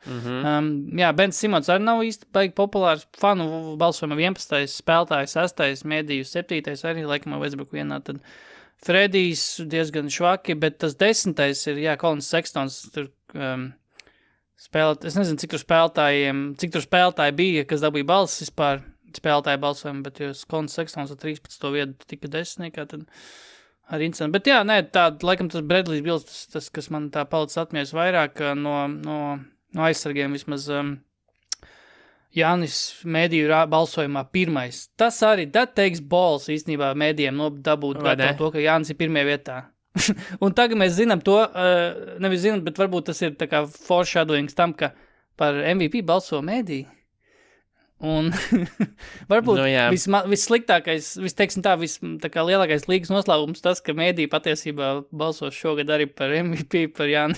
Bens Simons arī nav īsti baigi populārs. Fanu balsojumā 11. spēlētājs, 6. mēdīju 7. arī laikam Westbrook vienā. Tad Fredijs diezgan švaki, bet tas 10. ir, Colins Sextons tur spēlēt. Es nezinu, cik tur spēlētāji bija, kas dabūja balsis vispār spēlētāju balsojumu, bet jo Colins Sextons ar 13. vietu tika 10. tad arī interesanti. Bet laikam tas Bradley's Bills, tas, kas man tā palicis atmiņas vairāk no aizsargiem vismaz Jānis mēdīju balsojumā pirmais. Tas arī, that takes balls īstenībā mēdījiem dabūt to, ka Jānis ir pirmajā vietā. Un tagad mēs zinām to, nevis zinām, bet varbūt tas ir tā kā foreshadowings tam, ka par MVP balso mēdīju. Un varbūt vissliktākais, tā kā lielākais līgas noslēgums tas, ka mēdī patiesībā balsos šogad arī par MVP, par Jānu.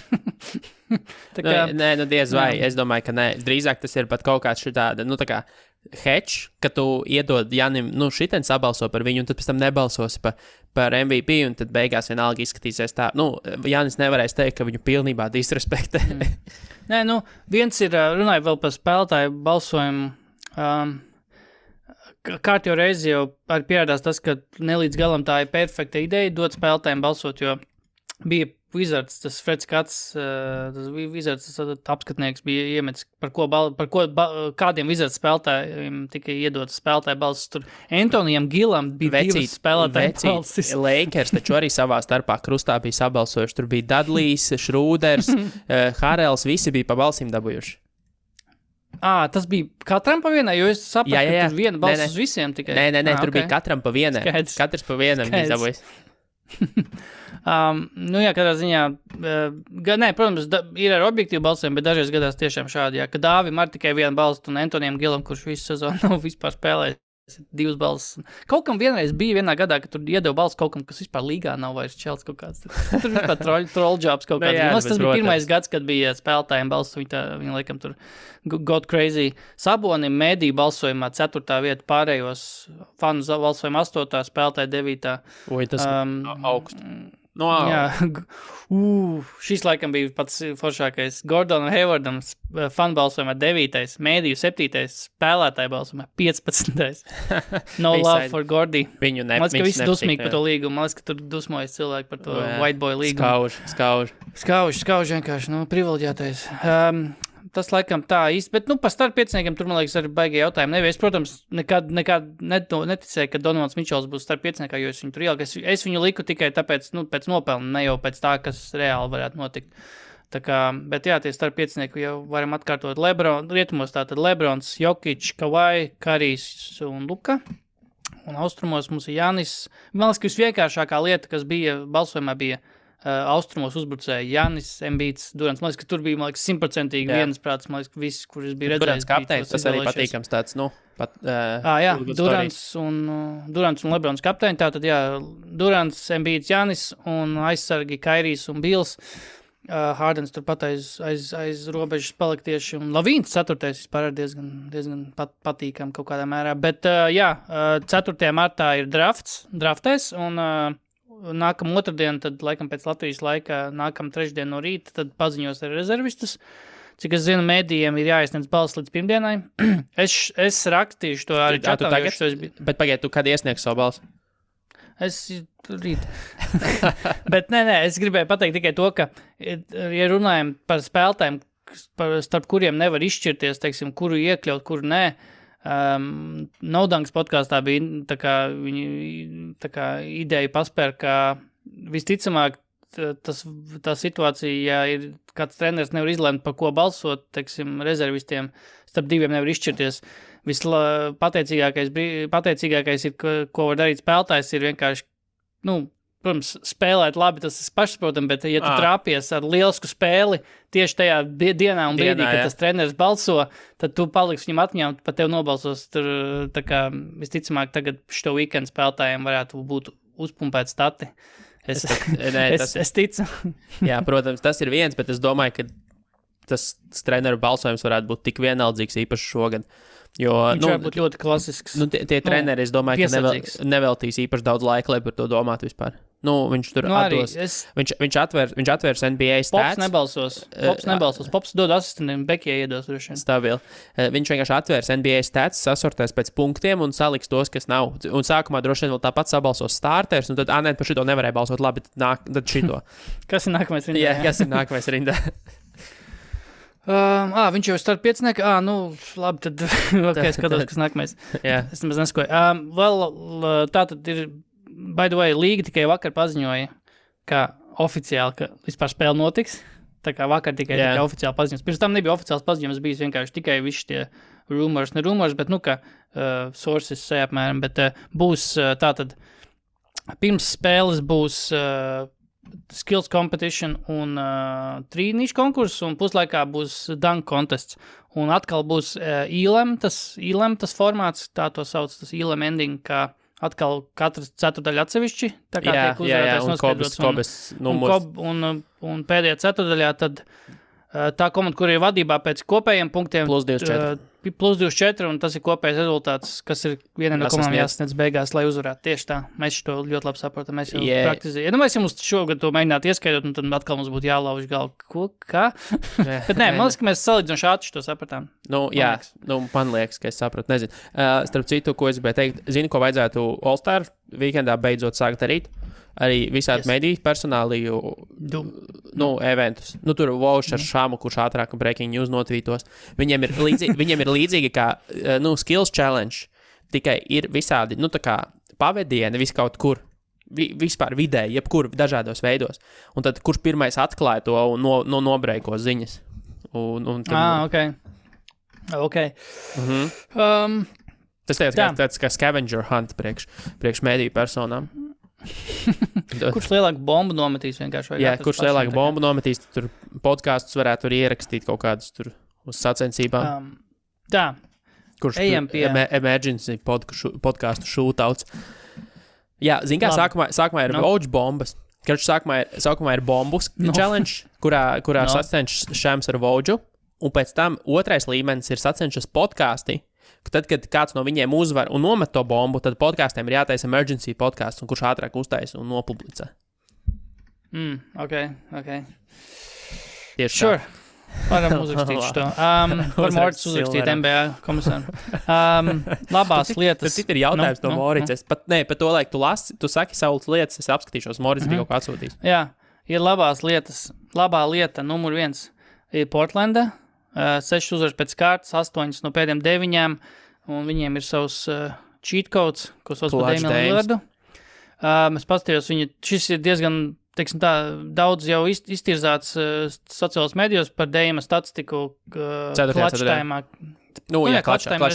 Diez vai. Es domāju, ka nē. Drīzāk tas ir pat kaut kāds šitāda, tā kā hedge, ka tu iedod Jānim, šitien sabalso par viņu, un tad pēc tam nebalsosi par MVP, un tad beigās vienalga izskatīsies tā. Jānis nevarēs teikt, ka viņu pilnībā disrespektē. Nē, viens ir, runāju vēl par spēlētāju balsojumu, kārtjo reizi jau arī pierādās tas, ka nelīdz galam tā ir perfekta ideja dot spēlētājiem balsot, jo bija Wizards, tas Freds Kats, tas Wizards, tas apskatnieks bija iemetis, par ko kādiem Wizards spēlētājiem tika iedotas spēlētāju balsis. Tur Antonijam Gilam bija divas spēlētāju balsis. Lakers taču arī savā starpā krustā bija sabalsojuši. Tur bija Dudlejs, Šrūders, Harels, visi bija pa balsīm dabūjuši. Tas bija katram pa vienai, jo es sapratu, ka tur viena balss uz visiem tikai. Nē, tur bija katram pa vienai. Katrs pa vienam bija dabūjis. Katrā ziņā, protams, ir ar objektīvu balsēm, bet dažreiz gadās tiešām šādi, ka Dāvim ar tikai vienu balstu un Antonijam Gilam, kurš visu sezonu nav vispār spēlējis, 2 balsis. Kaut kam vienreiz bija vienā gadā, ka tur iedeva balsu kaut kam, kas vispār līgā nav vairs čelts kaut kāds. Tur vispār troll jobs kaut kāds. Tas bija pirmais gads, kad bija spēlētājiem balsu, viņi laikam tur got crazy. Sabonim mēdī balsojumā 4. vieta, pārējos fanu balsojumā 8. spēlētāji 9. Oi, tas augst. Šis laikam bija pats foršākais. Gordonam Haywardam fanu balsojumā 9. mēdīju 7. spēlētāju balsojumā 15. No love for Gordy. Viņu Man liekas, ka visi dusmīgi par to līgumu. Man liekas, ka tur dusmojas cilvēki par to white boy līgumu. Skauž vienkārši, privileģētais. Tas laikam tā īsti, bet par starppieciniekiem tur, man liekas, arī baigi jautājumi nebija. Es, protams, nekad neticēju, ka Donovans Mičels būs starppieciniekā, jo es viņu tur ieliku. Es viņu liku tikai tāpēc, pēc nopelna, ne jau pēc tā, kas reāli varētu notikt. Tā kā, bet tie starppiecinieki jau varam atkārtot rietumos tātad Lebrons, Jokic, Kawhi, Karijs un Luka. Un austrumos mums ir Jānis. Man liekas, ka visvienkāršākā lieta, kas bija balsojumā, bija austrumos uzbrucēja Jānis, Embiids, Durants. Man liekas, ka tur bija, 100% viensprāts, man liekas, viss, kurš bija redzējis. Durants kapteinis, tas arī patīkams tāds, Durants un Lebrons kapteini, tātad, Durants, Embiids, Jānis un aizsargi Kairijs un Bills. Hardens turpat aiz robežas palika tieši, un Lavīns 4. vispār ir diezgan patīkam kaut kādā mērā. Bet, 4. martā ir draftēs, un nākam otrdien, tad laikam pēc Latvijas laika, nākam trešdien no rīta, tad paziņos ar rezervistus. Cik es zinu, mēdījiem ir jāiesniedz balss līdz pirmdienai. Es rakstīšu to arī čatā. Bet pagaid, tu kad iesniegs savu balsu? Es rīt. Bet nē, es gribēju pateikt tikai to, ka, ja runājam par spēlētājiem, starp kuriem nevar izšķirties, teiksim, kuru iekļaut, kuru nē, Naudanks podkāstā bija tā kā ideja paspēr, ka visticamāk tā situācija, ja ir kāds treneris nevar izlemt, par ko balsot, teiksim, rezervistiem, starp diviem nevar izšķirties. Pateicīgākais ir, ko var darīt spēlētājs, ir vienkārši, protams, spēlēt labi, tas ir pašsaprotam, bet ja tu trāpies ar lielisku spēli tieši tajā dienā un brīdī, kad tas treneris balso, tad tu paliksi viņam atmiņā un pat tev nobalsos. Tur, tā kā visticamāk, tagad šo weekend spēlētājiem varētu būt uzpumpēt stati. Es ticu. Jā, protams, tas ir viens, bet es domāju, ka tas treneru balsojums varētu būt tik vienaldzīgs īpaši šogad. Jo, viņš var būt ļoti klasisks. Tie treneri, es domāju, ka neveltīs īpaši daudz laika, lai par to domātu vispār. Viņš tur atdos. Viņš atvērs NBA stats. Pops nebalsos. Pops dod asistentiem, Bekijai iedos. Stabili. Viņš vienkārši atvērs NBA stats, sasortēs pēc punktiem un saliks tos, kas nav. Un sākumā droši vien vēl tāpat sabalsos starters, un tad, par šito nevarēja balsot labi, tad šito. Kas ir nākamais rindā? Jā, kas ir nākamais rindā? Viņš jau starp piecinieki. Labi, tad skatos, kas nākamais. Es nemaz neskoju. Tā tad ir, by the way, līga tikai vakar paziņoja, ka oficiāli, ka vispār spēle notiks. Tā kā vakar tikai oficiāli paziņojas. Pirms tam nebija oficiāls paziņojums, bijis vienkārši tikai visi tie rumors, bet, ka sources apmēram, bet būs tātad, pirms spēles būs skills competition un trīnīšu konkurss, un puslaikā būs dunk contests. Un atkal būs ILM, tas formāts, tā to sauc, tas ILM ending, kā atkal katrs ceturdaļa atsevišķi, tā kā tiek uzvarētājs noskaidrots. Un pēdējā ceturdaļā tad tā komanda, kur ir vadībā pēc kopējiem punktiem plus 24, un tas ir kopējais rezultāts, kas ir viena no komandām jāsasniedz beigās, lai uzvarētu. Tieši tā. Mēs to ļoti labi saprotam. Mēs jau praktizējam. Mēs jau šogad to mēģinātu ieskaidrot, un tad atkal mums būtu jālauž galvu. Kā? Bet nē, man liekas, ka mēs salīdzinoši ātri to sapratām. Man liekas, ka es sapratu. Nezinu. Starp citu, ko es gribēju teikt, zini, ko vajadzētu All-Star weekendā beidzot sākt darīt? Arī visādi mediju personāliju eventus. Tur Vauš ar Šāmu, kurš ātrāk un breaking news notvītos. Viņiem ir līdzīgi kā skills challenge, tikai ir visādi, tā kā pavedieni vis kaut kur, vispār vidēji, jebkur dažādos veidos. Un tad kurš pirmais atklāja to un nobreiko ziņas. Ok. Tas tāds kā scavenger hunt priekš mediju personām. Kurš lielāku bombu nometīs vienkārši? Kurš lielāku bombu nometīs, tur podkāstus varētu tur ierakstīt kaut kādus tur uz sacensībām. Kurš ejam pie emergency podkāstu shootouts. Jā, zin kā, sākumā ir vouch bombas. Sākumā ir bombus challenge, kurā sacenšas Šams ar vouchu, un pēc tam otrais līmenis ir sacenšas podkāsti. Tad, kad kāds no viņiem uzvar un nomet to bombu, tad podkāstiem ir jātaisa emergency podkāsts, un kurš ātrāk uztaisa un nopublicē. Ok. Tieši sure. Varam uzrakstīt šo. Var Morits uzrakstīt NBA komisāru. Labās lietas. Tas ir jautājums no Morits. Pat to laiku tu lasi, tu saki savas lietas, es apskatīšos, Morits bija kaut kā atsūtījis. Jā, ir labās lietas. Labā lieta, numur 1, ir Portlanda. 6 uzvaras pēc kārtas, 8 no pēdējiem 9, un viņiem ir savs cheat codes, ko sauc par Damianu Lillardu. Es paskatījos, šis ir diezgan, teiksim tā, daudz jau iztirzāts sociālos medijos par Damiana statistiku klačtaimā. Klačtaimā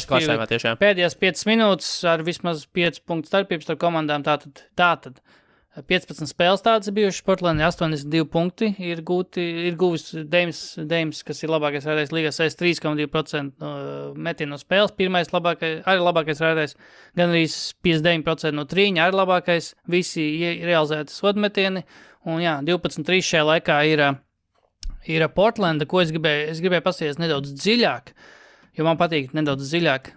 tiešām. Pēdējās 5 minūtes ar vismaz 5 punktu starpības starp komandām, tātad 15 spēles tādas bijušas, Portlandē 82 punkti ir guvis Deims, kas ir labākais rādējs līgā, 63,2% metienu no spēles, pirmais labākais rādējs, gan arī 59% no trīņa, arī labākais, visi realizēti sodmetieni, un 12-3 šajā laikā ir Portlanda, ko es gribēju pasties nedaudz dziļāk, jo man patīk nedaudz dziļāk.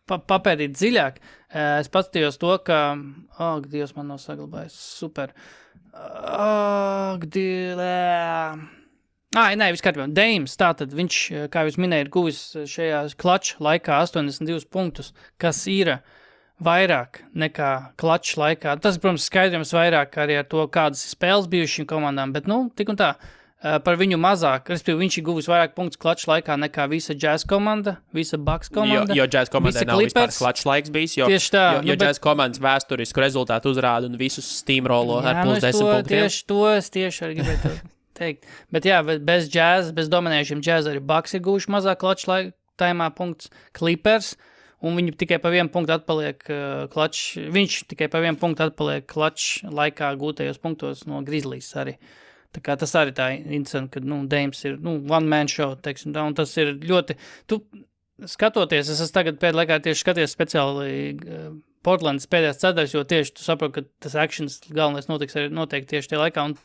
Papētīt dziļāk. Es paskatījos to, ka... Dievs, man nav saglabājis. Super. Viss kārtībā. Deims, tātad viņš, kā jūs minēja, ir guvis šajā klača laikā 82 punktus, kas ir vairāk nekā klačs laikā. Tas, protams, skaidrojums vairāk arī ar to, kādas spēles bijušas šīm komandām, bet, tik un tā, par viņu mazāk, respektīvi, viņš ir guvis vairāk punktus klačs laikā nekā visa Jazz komanda, visa Bucks komanda. Jo Jazz komandai nav vispār klačs laiks bijis, jo Jazz komandas vēsturisku rezultātu uzrāda un visus steamrollo ar plus 10 punktiem. Tieši arī gribētu teikt. Bet jā, bez Jazz, bez dominējušiem Jazz arī Bucks ir guvuši mazāk klačs taimā punkts Clippers, un viņi tikai pa vienu punktu atpaliek viņš tikai pa vienu punktu atpaliek klačs laikā gūtajos punktos no Grizzlies arī. Tā kā tas arī tā interesanti, ka, Dames ir, one man show, teiksim tā, un tas ir ļoti, skatoties, es tagad pēdējā laikā tieši skaties speciāli Portlandas pēdējās ceturdaļas, jo tieši tu saproti, ka tas actions galvenais notiks arī noteikti tieši tajā laikā, un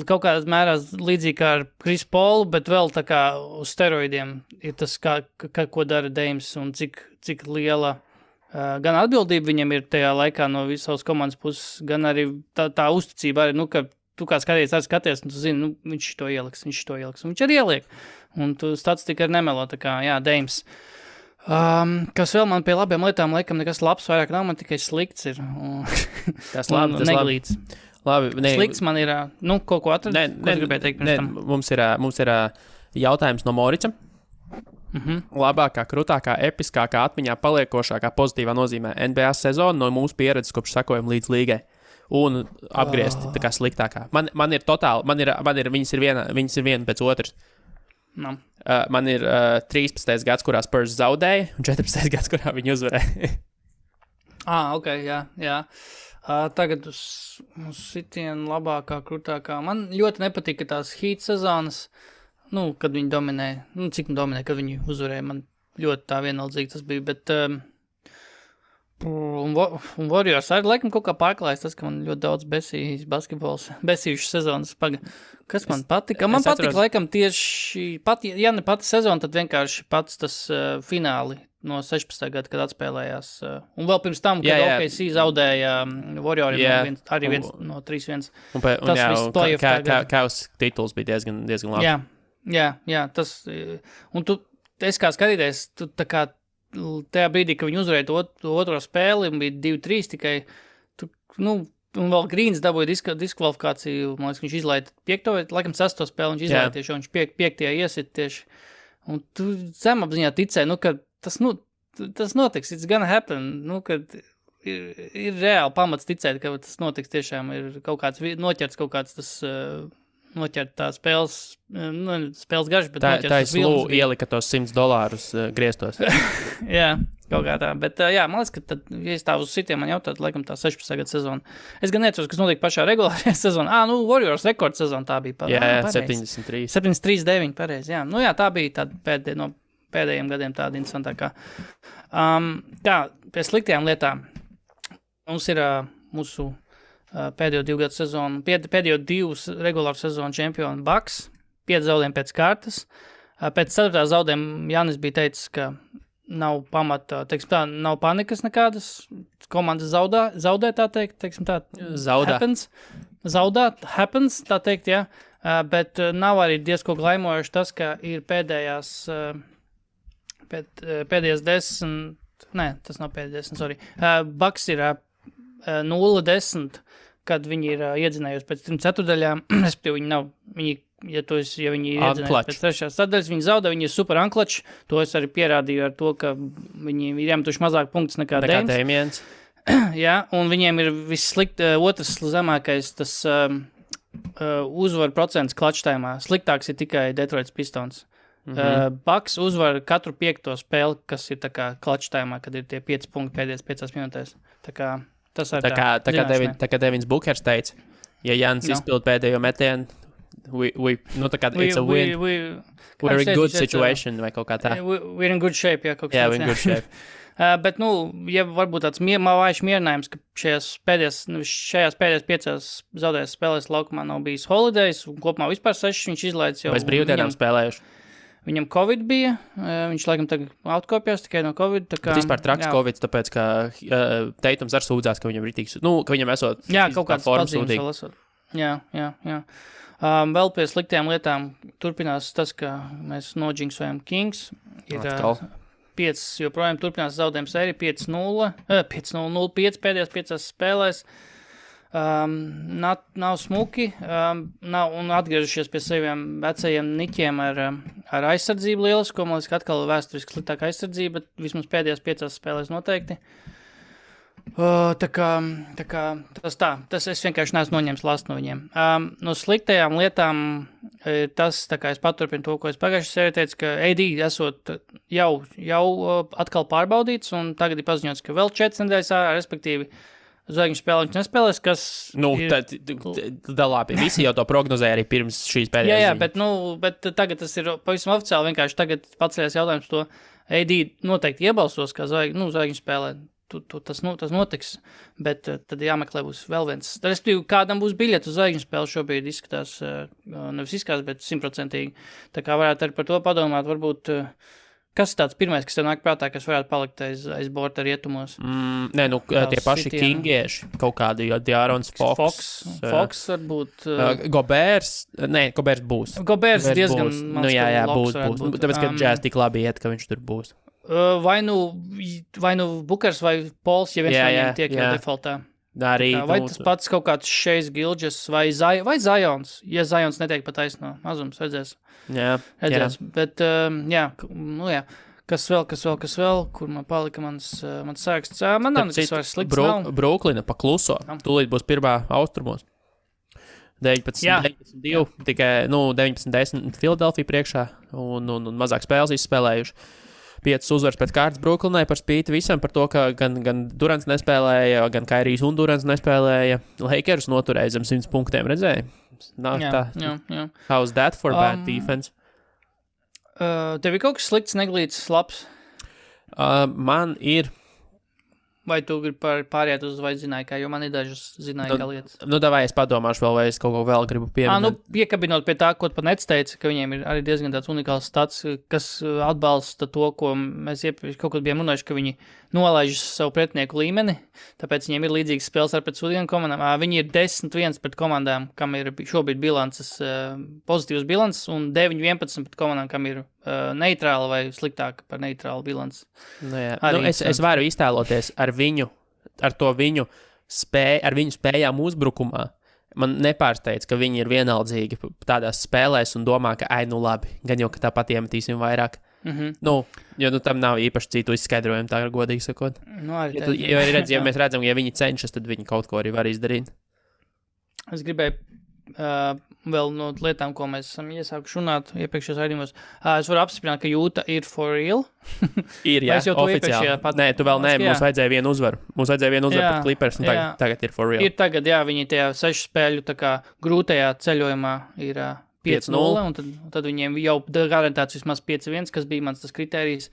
kaut kādā mērā līdzīgi kā ar Chris Paulu, bet vēl tā kā uz steroidiem ir tas, ko dara Dames, un cik liela gan atbildība viņam ir tajā laikā no visas komandas puses, gan arī tā uzticība arī, ka tu kā skaties, un tu zini, viņš to ieliks, un viņš arī ieliek. Un tu statistika arī nemelo, tā kā, jā, Dames. Kas vēl man pie labiem lietām, laikam nekas labs vairāk nav, man tikai slikts ir. Tas labi, tas neglīts. Labi. Slikts man ir, kaut ko atrast, ko gribēju teikt pirms tam. Mums ir jautājums no Morica. Labākā, krutākā, episkākā, atmiņā paliekošākā pozitīvā nozīmē NBA sezona no mūsu pieredzes, kopš sakojam līdz līgai. Un apgriezti tā kā sliktākā. Man ir totāli, viņas ir viena pēc otras. No. Man ir 13. gads, kurā Spurs zaudēja, un 14. gads, kurā viņi uzvarēja. Ok, jā. Tagad uz sitienu labākā, krutākā. Man ļoti nepatika tās Heat sezonas, kad viņi dominē, cik dominē, kad viņi uzvarēja. Man ļoti tā vienaldzīgi tas bija, bet... Un Warriors arī laikam kaut kā pārklājas tas, ka man ļoti daudz besījušas sezonas kas man patika? Man patika laikam tieši, ja ne pati sezona, tad vienkārši pats tas fināli no 16. gada, kad atspēlējās. Un vēl pirms tam, kad OKC zaudēja Warrioriem, arī viens no 3-1. Tas viss playoff tagad. Kaus tituls bija diezgan labi. Jā, tas, un es kā skatīties, tu tā kā tajā brīdī, kad viņi uzvarēja to otro spēli, un bija 2-3 tikai, un vēl Grīns dabūja diskvalifikāciju, man liekas, viņš izlaida 5. laikam 6. spēli, viņš izlaida tieši, un viņš 5. iesit tieši, un tu zemapziņā ticēji, ka tas notiks, it's gonna happen, kad ir reāli pamats ticēt, ka tas notiks tiešām, ir kaut kāds, noķerts kaut kāds tas... noķert tā spēles garš, bet noķert tas vilnis. Tā ielika tos $100 griestos. Jā, kaut kā tā. Bet jā, man liekas, ka tad, ja es tā uz sitiem man jautāt, laikam tā 16. gada sezona. Es gan neatceros, kas notika pašā regulārajā sezonā. Warriors rekords sezona tā bija. Jā, 73. 73-9, pareizi, jā. Tā bija tāda no pēdējiem gadiem tāda interesantākā. Pie sliktajām lietām. Mums ir mūsu pēdējo 2 gadu sezonu, pēdējo 2 regulāru sezonu čempionu Bucks, 5 zaudējumi pēc kārtas. Pēc 4. zaudējuma Jānis bija teicis, ka nav pamata, teiksim tā, nav panikas nekādas, komandas zaudē, tā teikt, teiksim tā, happens, tā teikt, jā, bet nav arī diezko glaimojoši tas, ka ir pēdējās 10, tas nav pēdējās 10, sorry, Bucks ir 0-10, kad viņi ir iedzinējuši pēc 3 ceturdaļām, respektīvi ja viņi ir iedzinējuši pēc 3. sadaļas, viņi zaudē, viņi ir super anklači, to es arī pierādīju ar to, ka viņi ir iemetuši mazāk punktus nekā Damiens. Jā, un viņiem ir otrs zemākais tas uzvaru procents klačtaimā. Sliktāks ir tikai Detroits Pistons. Bucks uzvar katru 5. spēli, kas ir tā kā klačtaimā, kad ir tie 5 punkti pēdējās 5 minūtēs. Tā kā tas arī tā kā Devins Bookers teica, ja Jans izpild pēdējo metienu, it's a win. We're in good situation, vai kaut kā tā. We're in good shape, jā, kaut kā tā. Jā, we're in good shape. Bet, ja varbūt tāds vājš mierinājums, ka šajās pēdējās 5 zaudējas spēlēs laukumā nav bijis holidays, un kopumā vispār 6 viņš izlaids jau. Bez brīvdienām spēlējuši. Viņam Covid bija, viņš laikam tagad atkopjās tikai no Covid. Tā kā, bet vispār traks Covid, tāpēc, ka Teitums arī sūdzās, ka viņam ritīgs, ka viņam esot kaut kāds pazīmes vēl esot. Jā. Vēl pie sliktajām lietām turpinās tas, ka mēs nodžinksojam Kings. Ir joprojām turpinās zaudējumu sēriju 5-0, 5-0-0-5 pēdējās 5 spēlēs. Nav smuki, nav un atgriežušies pie saviem vecajiem niķiem ar aizsardzību lielisko. Man liekas, ka atkal vēsturiski sliktāka aizsardzība, bet vismaz pēdējās 5 spēlēs noteikti. Tā kā tas es vienkārši neesmu noņēmis last no viņiem. No sliktajām lietām tas, tā kā es paturpinu to, ko es pagājušajā sērijā teicu, ka AD esot jau atkal pārbaudīts, un tagad ir paziņots, ka vēl 4 nedēļas ārā, respektīvi, zvaigžņu spēle viņš nespēlēs, kas labi, visi jau to prognozēja arī pirms šīs pēdējās ziņas. Bet tagad tas ir pavisam oficiāli, vienkārši tagad paceļās jautājums to AD noteikti iebalsos, kā zvaigžņu spēlē. Tas notiks, bet tad jāmeklē būs vēl viens. Respektīvi, kādam būs biļeti uz zvaigžņu spēli šobrīd izskatās, nevis izskatās, bet 100%. Tā kā varētu arī par to padomāt, varbūt, kas ir tāds pirmais, kas tev nāk prātā, kas varētu palikt aiz borta rietumos? Tie paši kingieši, kaut kādi, jo De'Aarons Fox varbūt. Gobērs būs. Gobērs diezgan mans, būs. Tāpēc, ka Jazz tik labi iet, ka viņš tur būs. Vai nu Bukers vai Pols, ja viens no viņiem tiek jau defaultā. Vai tas pats kaut kāds Šejs Gilģes vai Zions, ja Zions netiek pa taisno. Mazums, redzēs. Jā. Bet, Kas vēl, kur man palika mans sāksts. Man nav nekas vairs slikts nav. Bruklina pa kluso. Tūlīt būs pirmā austrumos. 19-2, tikai 19-10 Filadelfija priekšā un mazāk spēles izspēlējuši. 5 uzvaras pēc kārtas Bruklinai par spīti visam par to, ka gan Durants nespēlēja, gan Kairijs un Durants nespēlēja. Lakers noturēja zem 100 punktiem, redzēja? Jā. How's that for bad defense? Tev ir kaut kas slikts, neglīts, labs? Man ir. Vai tu gribi pāriet uz vai zināji, kā, jo man ir dažas zināji, kā lietas. Davai es padomāšu vēl, vai es kaut ko vēl gribu pieminēt. Piekabinot pie tā, ko pat Nets teica, ka viņiem ir arī diezgan tāds unikāls stats, kas atbalsta to, ko mēs kaut kad bijām runājuši, ka viņi nolaiž savu pretinieku līmeni, tāpēc viņiem ir līdzīgas spēles ar pret sudiem komandām. Viņi ir 10-1 pret komandām, kam ir šobrīd bilances, pozitīvas bilances, un 9-11 pret komandām, kam ir neitrāla vai sliktāka par neitrālu bilanci. Es varu iztēloties ar viņu spējām uzbrukumā. Man nepārsteidz, ka viņi ir vienaldzīgi tādās spēlēs un domā, ka labi, gan jau, ka tāpat iemetīsim vairāk. Jo tam nav īpaši citu izskaidrojumu, tā ir godīgi sakot. Ja mēs redzam, ja viņi cenšas, tad viņi kaut ko arī var izdarīt. Es gribēju vēl no lietām, ko mēs esam iesākuši runāt iepriekšējos raidījumos. Es varu apstiprināt, ka Jūta ir for real. Ir, jā, oficiāli. Nē, tu vēl nē, mums vajadzēja vienu uzvaru. Mums vajadzēja vienu uzvaru pret Clippers, un tagad ir for real. Ir tagad, jā, viņi tajā 6 spēļu tā kā grūtajā ceļojumā ir 5-0, un tad viņiem jau garantēts vismaz 5-1, kas bija mans tas kritērijs.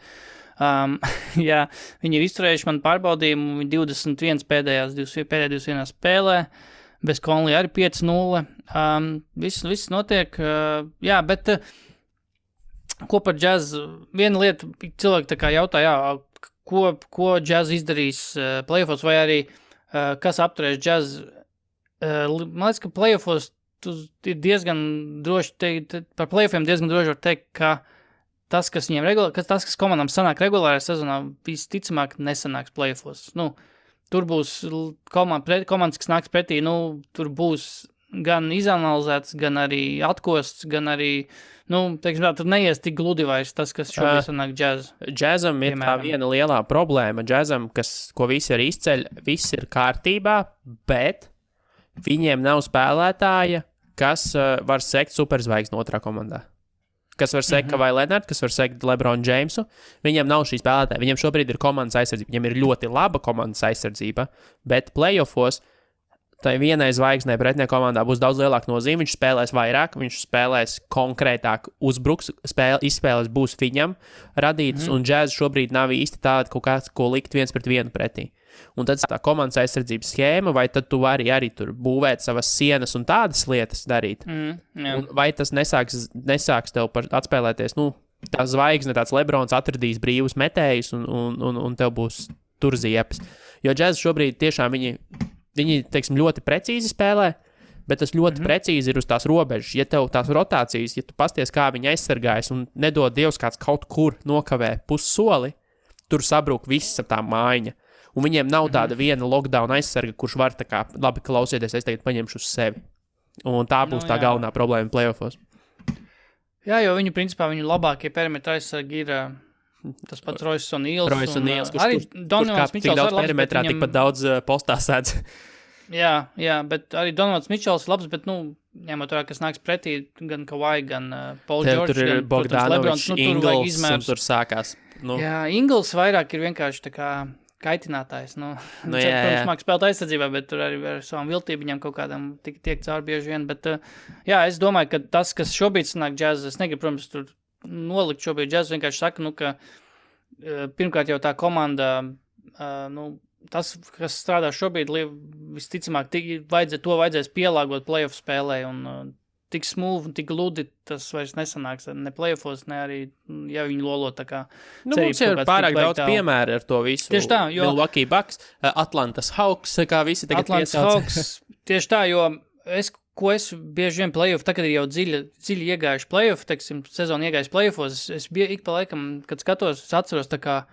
Jā, viņi ir izturējuši man pārbaudījumu, viņi 21 pēdējās 21 spēlē. Bez Conley arī 5-0. Viss notiek. Jā, bet ko par Jazz? Viena lieta, cilvēki tā kā jautā, ko Jazz izdarīs playoffos, vai arī kas apturēs Jazz? Man liekas, ka playoffos ir diezgan droši teikt, par playoffiem diezgan droši var teikt, ka tas, kas komandām sanāk regulārajā sezonā, visticamāk nesanāks playoffos. Tur būs komandas, kas nāks pretī, tur būs gan izanalizēts, gan arī atkosts, gan arī, tur neies tik gludi vairs tas, kas šobrīd sanāk Jazz. Jazzam ir tā viena lielā problēma. Jazzam, ko visi arī izceļ, viss ir kārtībā, bet viņiem nav spēlētāja, kas var sekt superzvaigzni otrā komandā. Kas var sekt Kawhi Leonard, kas var sekt LeBron Jamesu. Viņiem nav šī spēlētāja. Viņiem šobrīd ir komandas aizsardzība. Viņiem ir ļoti laba komandas aizsardzība, bet playoffos tai vienai zvaigznei pretinieka komandā būs daudz lielāka nozīme. Viņš spēlēs vairāk, viņš spēlēs konkrētāk, uzbruks, izspēles būs viņam radītas, un Jazz šobrīd nav īsti tāda kaut kāds, ko likt viens pret vienu pretī. Un tad tā komandas aizsardzības schēma, vai tad tu vari arī tur būvēt savas sienas un tādas lietas darīt? Vai tas nesāks tev atspēlēties, tā zvaigzne, tāds Lebrons atradīs brīvus metējus un tev būs tur ziepes. Jo Jazz šobrīd tiešām viņi teiksim, ļoti precīzi spēlē, bet tas ļoti precīzi ir uz tās robežas. Ja tev tās rotācijas, ja tu pasties, kā viņi aizsargājas un nedod Dievs kāds kaut kur nokavē pussoli, tur sabrūk viss ap tā mājiņa. Un viņiem nav tāda viena lockdown aizsarga, kurš var tā kā, labi, klausieties, es tagad paņemšu uz sevi. Un tā būs tā galvenā problēma playoffos. Jā, jo viņu labākie perimetri aizsargi ir tas pats Royce O'Neals. Kurš tik daudz perimetrā, tikpat daudz postā sēdz. Jā, bet arī Donovans Mičels ir labs, bet, ņemot vērā, kas nāks pretī, gan Kawhi, gan Paul George, tur ir Bogdanovičs, Ingles, un tur sākās. Jā, Ingles vairāk ir vienkārši tā kā kaitinātājs. Protams, māk spēlēt aizsardzībā, bet tur arī ar savām viltību kaut kādam tiek cauri bieži vien. Bet, es domāju, ka tas, kas šobrīd sanāk džēzes, es negribu, protams, tur nolikt šobrīd džēzes, vienkārši saka, ka pirmkārt jau tā komanda, tas, kas strādā šobrīd, visticamāk, to vajadzēs pielāgot playoff spēlē, un tik smooth un tik gludi tas vairs nesanāks ne playoffos, ne arī, ja viņi lolo tā kā mums ir pārāk daudz piemēru ar to visu. Tieši tā, jo Milwaukee Bucks, Atlantas Hawks, kā visi tagad piesauc. Tieši tā, jo es bieži vien playoff, tā, kad ir jau dziļi iegājuši playoff, teiksim, sezonu iegājuši playoffos, es ik pa laikam, kad skatos, es atceros tā kā,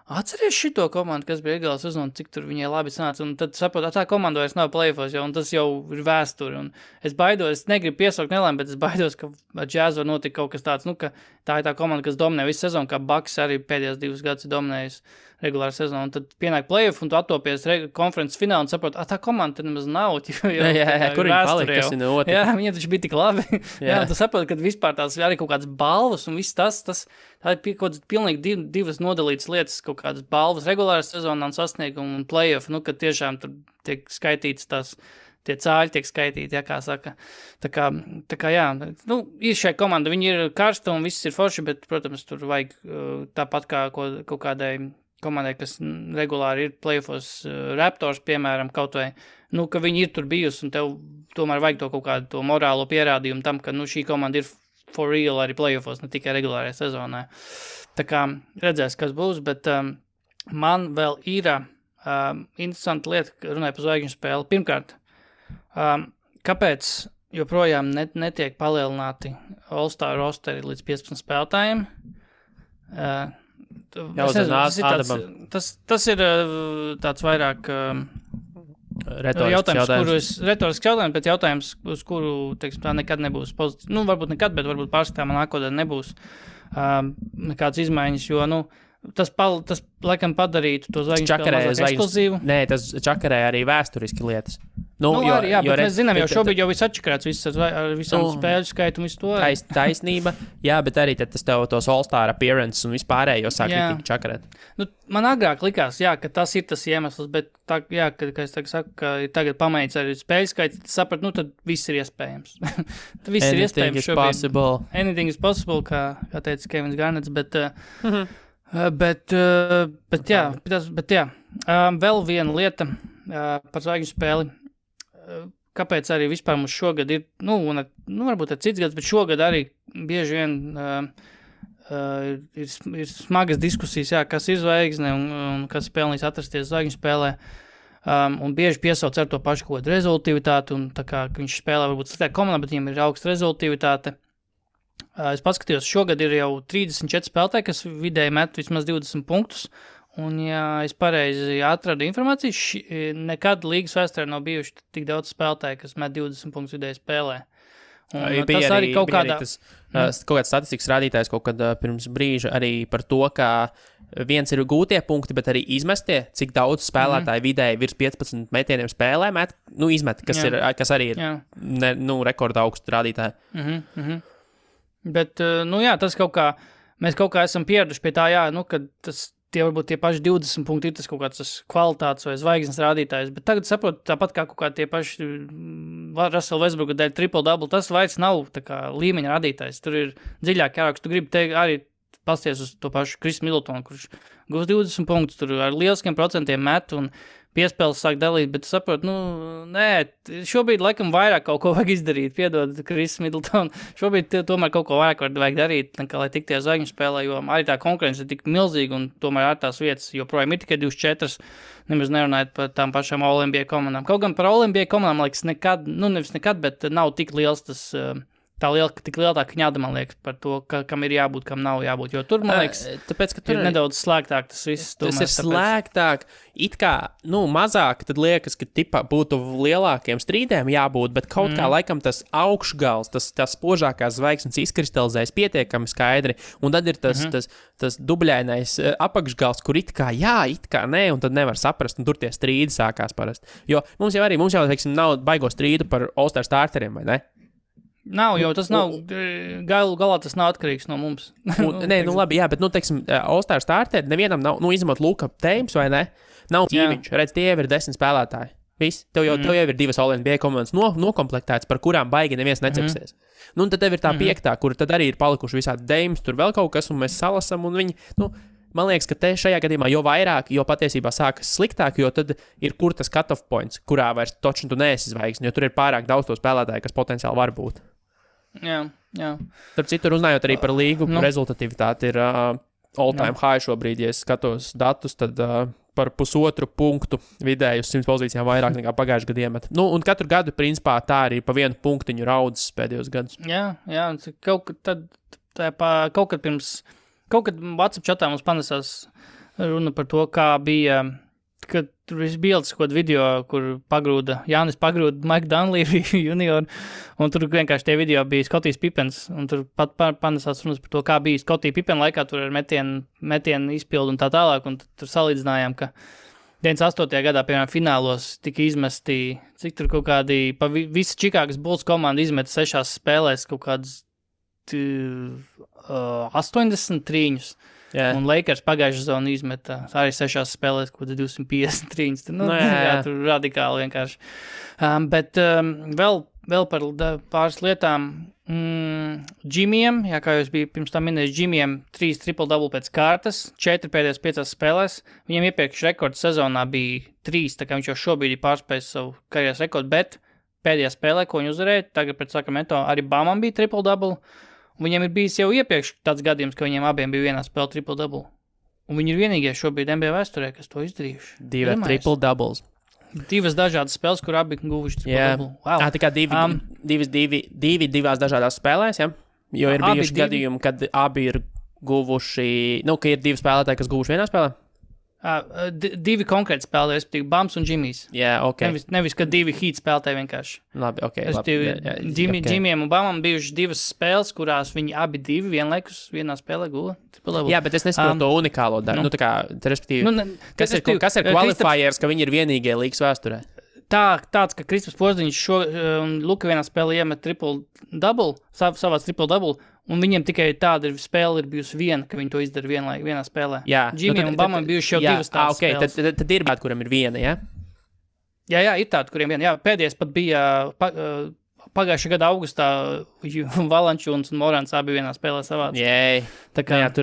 atceries šito komandu, kas bija Eagles uzman, cik tur viņai labi sanāca, un tad saprotu, tā komanda vairs nav playoffos, un tas jau ir vēsturi, un es baidos, es negribu piesaukt nelēm, bet es baidos, ka ar Jazz var notikt kaut kas tāds, ka tā ir tā komanda, kas dominē visu sezonu, kā Bucks arī pēdējās 2 gadus ir dominējis regulāru sezonu, un tad pienāk playoff, un tu attopies konferences finālu, un saproti, tā komanda tad nemaz nav, jā, kur viņi palika, kas ir otrs. Jā, viņi taču bija tik labi. Jā, un tu saproti, ka vispār tās arī kaut kādas balvas, un viss tā ir kaut kādas pilnīgi divas nodalītas lietas, kaut kādas balvas regulāras sezonā un sasniegumu un playoff, kad tiešām tur tiek skaitīts tie cāļi tiek skaitīti, kā saka. Tā kā jā, ir šai komanda, viņi ir karsta un viss ir forši, bet, protams, tur vajag tāpat kā kaut kādai komandai, kas regulāri ir playoffos Raptors, piemēram, kaut vai, ka viņi ir tur bijusi un tev tomēr vajag to kaut kādu to morālo pierādījumu tam, ka, šī komanda ir for real arī playoffos, ne tikai regulārajā sezonā. Tā kā redzēs, kas būs, bet man vēl ir interesanta lieta, runāja par zvaigžņu spēli. Pirmkārt, kāpēc joprojām netiek palielināti All-Star rosteri līdz 15 spēlētājiem? Tas ir tāds vairāk retorisks jautājums, bet jautājums, uz kuru, teiksim, tā nekad nebūs pozitīvs. Varbūt nekad, bet varbūt pārskatāmā nākotnē nebūs nekādas izmaiņas, jo, tas laikam padarītu to zvaigžņu spēli mazāk ekskluzīvu. Nē, tas čakarē arī vēsturiski lietas. Bet mēs zinām, jau šobrīd jau viss atčakarēts, ar visām spēļu skaitu un visu to. Taisnība, jā, bet arī tad tas tev tos All-Star appearance un vispārējo sāk tik čakarēt. Man agrāk likās, ka tas ir tas iemesls, bet tā, kad es saku, ka tagad pamainīts arī spēļu skaits, tad saprat, tad viss ir iespējams. Viss ir iespējams šobrīd. Anything is possible, kā teica Kevins Garnets, bet jā. Vēl viena lieta par zvaigžņu spēli. Kāpēc arī vispār mums šogad ir, varbūt ir cits gads, bet šogad arī bieži vien ir smagas diskusijas, kas ir zvaigzne un kas pelnīs atrasties zvaigžņu spēlē. Un bieži piesauc ar to pašu kaut kādu rezultivitāti, un tā kā viņš spēlē varbūt sliktāk komandā, bet viņam ir augsta rezultivitāte. Es paskatījos, šogad ir jau 34 spēlētāji, kas vidēji met vismaz 20 punktus. Un, ja es pareizi atradu informāciju, nekad līgas vēsturē nav bijuši tik daudz spēlētāji, kas met 20 punktus vidēji spēlē. Un tas arī kaut kāds statistikas rādītājs kaut kad pirms brīža arī par to, ka viens ir gūtie punkti, bet arī izmestie, cik daudz spēlētāji vidēji virs 15 metieniem spēlē met, izmet, kas arī ir rekorda augstu rādītāji. Bet, tas kaut kā, mēs kaut kā esam pieraduši pie tā, kad tie varbūt tie paši 20 punkti ir tas kaut kāds kvalitātes vai zvaigznes rādītājs, bet tagad saprotu, tāpat kā kaut kā tie paši Russell Westbrooka dēļ triple-double, tas vairs nav tā kā līmeņa rādītājs, tur ir dziļāk jārāk, tu gribi teikt arī pasties uz to pašu Chris Middletonu, kurš gūs 20 punktus, tur ar lieliskiem procentiem met un piespēles sāk dalīt, bet saprotu, šobrīd laikam vairāk kaut ko vajag izdarīt, piedod Chris Middleton, šobrīd tomēr kaut ko vairāk vajag darīt, nekā lai tiktie zvaigžņu spēlē, jo arī tā konkurence ir tik milzīga un tomēr ar tās vietas, joprojām ir tikai 24, nemaz nerunājot par tām pašām All-NBA komandām. Kaut gan par All-NBA komandām, liekas, nevis nekad, bet nav tik liels tas tik liela tā kņada, man liekas, par to, kam ir jābūt, kam nav jābūt. Jo tur, man liekas, tāpēc, ka tur ir nedaudz slēgtāk tas viss. Tas ir slēgtāk, it kā, mazāk, tad liekas, ka tipā būtu lielākiem strīdiem jābūt, bet kaut kā laikam tas augšgals, tas spožākās zvaigznes izkristalizējas pietiekami skaidri, un tad ir tas dubļainais apakšgals, kur it kā jā, it kā nē, un tad nevar saprast, un tur tie strīdi sākās parasti. Jo mums jau, teiksim, nav baigo strīdu par All-Star starteriem, vai ne? Nav, jo tas nav, galā tas nav atkarīgs no mums. Nē, labi, jā, bet, teiksim, All-Star starteri nevienam nav, izņemot Luka Teims, vai ne? Nav ķīviņš, redz, tie jau ir 10 spēlētāji. Viss, tev jau ir 2 All-NBA komandas nokomplektētas, par kurām baigi neviens necepsies. Un tad tev ir tā 5, kur tad arī ir palikuši visādi Deims, tur vēl kaut kas, un mēs salasam, un viņi, man liekas, ka te šajā gadījumā jo vairāk, jo patiesībā sākas sliktāk, jo tad ir kur tas cut-off points, kurā vairs točni tu neesi zvaigzni, jo tur ir pārāk daudz to spēlētāju, kas potenciāli var būt. Jā. Starp citu, runājot arī par līgu, rezultatīvitāti ir all-time high šobrīd, ja es skatos datus, tad par 1,5 punktu vidēji uz 100 pozīcijām vairāk nekā pagājušajā gadā iemet. Un katru gadu, principā, tā arī pa 1 punktiņu raudzes pēdējos gadus. Jā, kaut kad WhatsApp chatā mums panesās runa par to, kā bija, kad tur viss bildes, kaut video, kur Jānis pagrūda Mike Dunleavy junior, un tur vienkārši tie video bija Scotties Pippens, un tur pat panesās runas par to, kā bija Scottie Pippen laikā, tur ar metienu izpildu un tā tālāk, un tur salīdzinājām, ka 98. gadā, piemēram, finālos tika izmesti, cik tur kaut kādi, visa Čikāgas Bulls komanda izmeta 6 spēlēs kaut kādas 83. Un Lakers pagājušā sezonā izmeta arī 6 spēlēs, kaut kāds 253. Tur radikāli vienkārši. Bet vēl par pāris lietām. Džimiem, kā jūs bija pirms tam minējis, Džimiem 3 triple-double pēc kārtas, 4 pēdējās 5 spēlēs. Viņam iepriekš rekords sezonā bija 3, tā kā viņš jau šobrīd ir pārspējis savu karjeras rekordu, bet pēdējā spēlē, ko viņi uzvarēja, tagad pret Sacramento, arī Bamam bija triple-double. Viņiem ir bijis jau iepriekš tāds gadījums, ka viņiem abiem bija vienā spēle triple-double. Un viņi ir vienīgie šobrīd NBA vēsturē, kas to izdarījuši. 2 triple-doubles. 2 dažādas spēles, kur abi guvuši triple-double. Wow. Tā kā 2 dažādās spēlēs, ja? Jo ir bijuši gadījumi, kad abi ir guvuši, ka ir 2 spēlētāji, kas guvuši vienā spēlē? 2 konkrēti spēlētāji, respektīvi Bams un Džimijs. Jā, ok. Nevis, ka 2 Heat spēlētāji vienkārši. Labi, ok. Džimijam un Bamam bijuši 2 spēles, kurās viņi abi 2 vienlaikus vienā spēlē guva. Jā, bet es nesaprotu to unikālo daļu. Respektīvi, kas ir qualifiers, ka viņi ir vienīgie līgas vēsturē? Tāds, ka Kristaps Porziņš un Luka vienā spēlē iemet triple-double, savāc triple-double, un viņiem tikai tāda spēle ir bijusi viena, ka viņi to izdara vienā spēlē. Jā. Džimijam un Bamam bijuši jau 2 tādas spēles. Tad ir tādi, kuriem ir viena, ja? Jā, ir tādi, kuriem viena. Jā, pēdējais pat bija pagājušā gada augustā Valančūns un Morants abi vienā spēlē savāc. Jēj.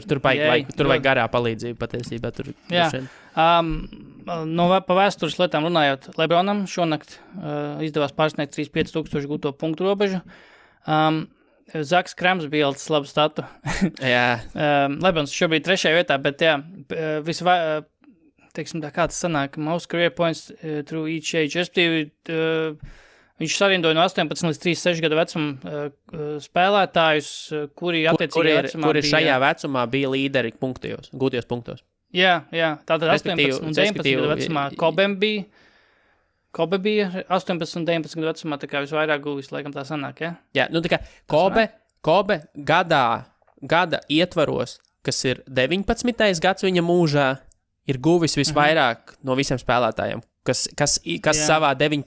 Tur vajag garā palīdzību patiesībā. Jā. Pa vēstures lietām runājot, Lebronam šonakt izdevās pārsniegt 35,000 gūto punktu robežu. Zaks Krams bija ielicis labu statu. Jā. Lebrons šobrīd 3. vietā, bet teiksim tā, kā tas sanāk, most career points through each age. Viņš sarindoja no 18 līdz 36 gadu vecuma spēlētājus, kuri attiecīgajā vecumā kuri šajā vecumā bija līderi gūtajos punktos. Jā, tātad 18 un 19 gadu vecumā Kobe bija 18 un 19 gadu vecumā, tā kā visvairāk guvis, laikam tā sanāk, ja? Jā, tā kā Kobe gada ietvaros, kas ir 19. gads viņa mūžā, ir guvis visvairāk no visiem spēlētājiem, kas savā 19.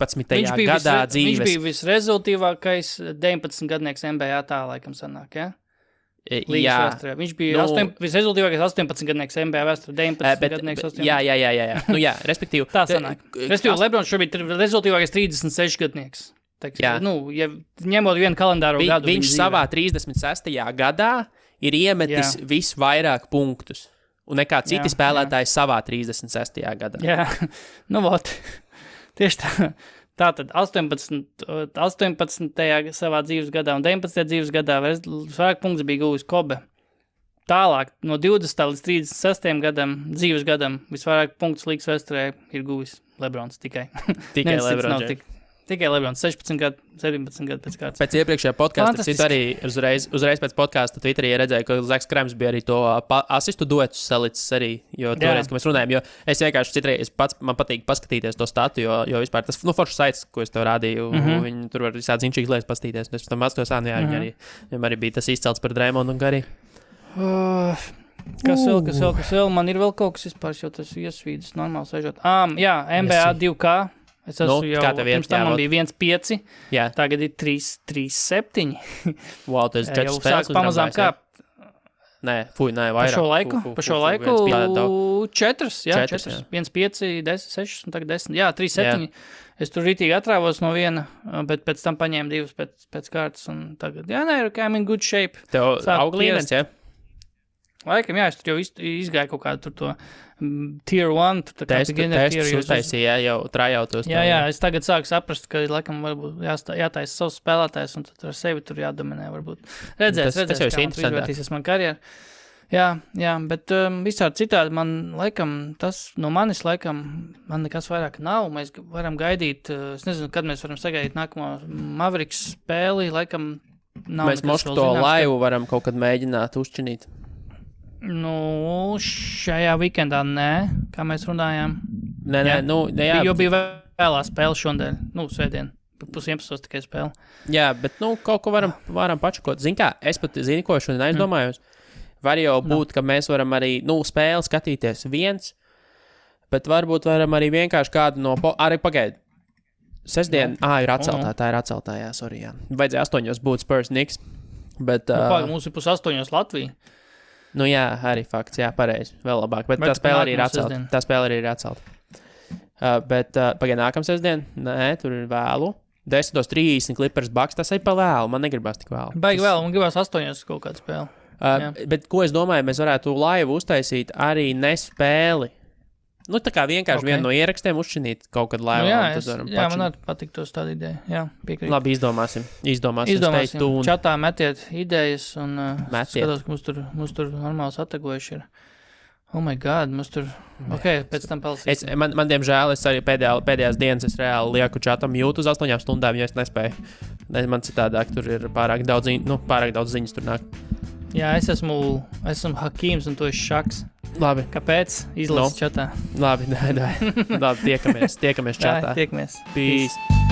gadā dzīves. Viņš bija visrezultīvākais 19 gadnieks NBA tā, laikam sanāk, ja? Līgas vēsturē. Viņš bija visrezultīvākais 18 gadnieks NBA vēsturē, 19 gadnieks 18. Jā, respektīvi. Tā sanāk. Respektīvi, Lebrons šobrīd ir rezultīvākais 36 gadnieks. Ja ņemot vienu kalendāro gadu. Viņš savā 36. gadā ir iemetis visvairāk punktus. Un nekā citi spēlētāji savā 36. gadā. Jā, tieši tā. Tātad 18. savā dzīves gadā un 19. dzīves gadā vairāk punktus bija guvis Kobe. Tālāk, no 20. līdz 36. dzīves gadam, visvairāk punktus līgas vēsturē ir guvis Lebrons tikai. Tikai Lebrons. Tikai Lebrons 16 gadu, 17 gadu pēc kārtas. Pēc iepriekšējā podkāsta es arī uzreiz pēc podkāsta Twitterī redzēju, ka Zaks Krems bija arī to asistu duetus salicis arī, jo toreiz, kad mēs runājam, jo es vienkārši citreiz man patīk paskatīties to statu, jo vispār tas, foršs saits, ko es tev rādīju, viņi tur var visādi zinčīgas lietas paskatīties, un es tam atstos, viņam arī bija tas izcelts par Draymondu un Gary. Kas vēl? Man ir vēl kaut kas vispār, jo tas iesvīdas normāli sēžot. Jā, NBA 2K. Es esmu jau, pirms tam man bija 1.5, tagad ir 3.7. Wow, tas ir 4 spēles. Jau sāk pamazām kāpt. Nē, vairāk. Pa šo laiku 4, 1.5, 10, 6 un tagad 10. Jā, 3.7. Es tur rītīgi atrāvos no viena, bet pēc tam paņēmu 2 pēc kārtas un tagad, I'm in good shape. Tev aug līmenis, Laikam, es tur jau izgāju kaut kādu tur to tier 1, tur tā kā beginner tier. Testus uztaisīja, jau trājautos. Jā, es tagad sāku saprast, ka laikam varbūt jātaisa savs spēlētājs un tad ar sevi tur jādominē varbūt. Redzēs, kā man izvērtīsies man karjeru. Jā, bet visādi citādi man manis man nekas vairāk nav. Mēs varam gaidīt, es nezinu, kad mēs varam sagaidīt nākamo Mavericks spēli, laikam nav. Mēs mošku to laivu varam kaut kad mēģināt uzčinīt. Šajā weekendā nē, kā mēs runājām. Nē, jo bija vēlā spēle šodien, svētdien, 11:30 tikai spēle. Jā, bet, kaut ko varam pačakot. Zini kā, es pat zinu, ko šodien aizdomājos. Var jau būt, ka mēs varam arī, spēli skatīties viens, bet varbūt varam arī vienkārši kādu arī pagaid. Sestdien, ir atceltā, tā ir atceltā, sorry, jā. Vajadzēja 8 būt Spurs Knicks, bet... Mums ir 8 Latvija. Arī fakts, pareizi, vēl labāk, bet tā spēle arī ir atcelta. Bet pagaid nākam sestdien, nē, tur ir vēlu. 10:30 Clippers Bucks, tas ir pa vēlu, man negribas tik vēlu. Baigi vēl, man gribas 8 kaut kādu spēli. Bet ko es domāju, mēs varētu laivu uztaisīt arī nespēli. Tā kā vienkārši vienu no ierakstiem uzšķinīt kaut kad laivā. Man arī patīk tos tādu ideju. Jā, piekrīt. Labi, izdomāsim. Čatā metiet idejas un skatos, ka mums tur normāli satagojuši ir. Oh my God, mums tur... pēc tam palsīsim. Man diemžēl, es arī pēdējās dienas es reāli lieku čatam mute uz 8 stundām, jo es nespēju. Man citādāk tur ir pārāk daudz ziņas tur nāk. Jā, es esmu Hakīms un tu esi Šaks. Labi. Kāpēc? Izlasi čatā. Labi, tiekamies čatā. Tiekamies. Peace.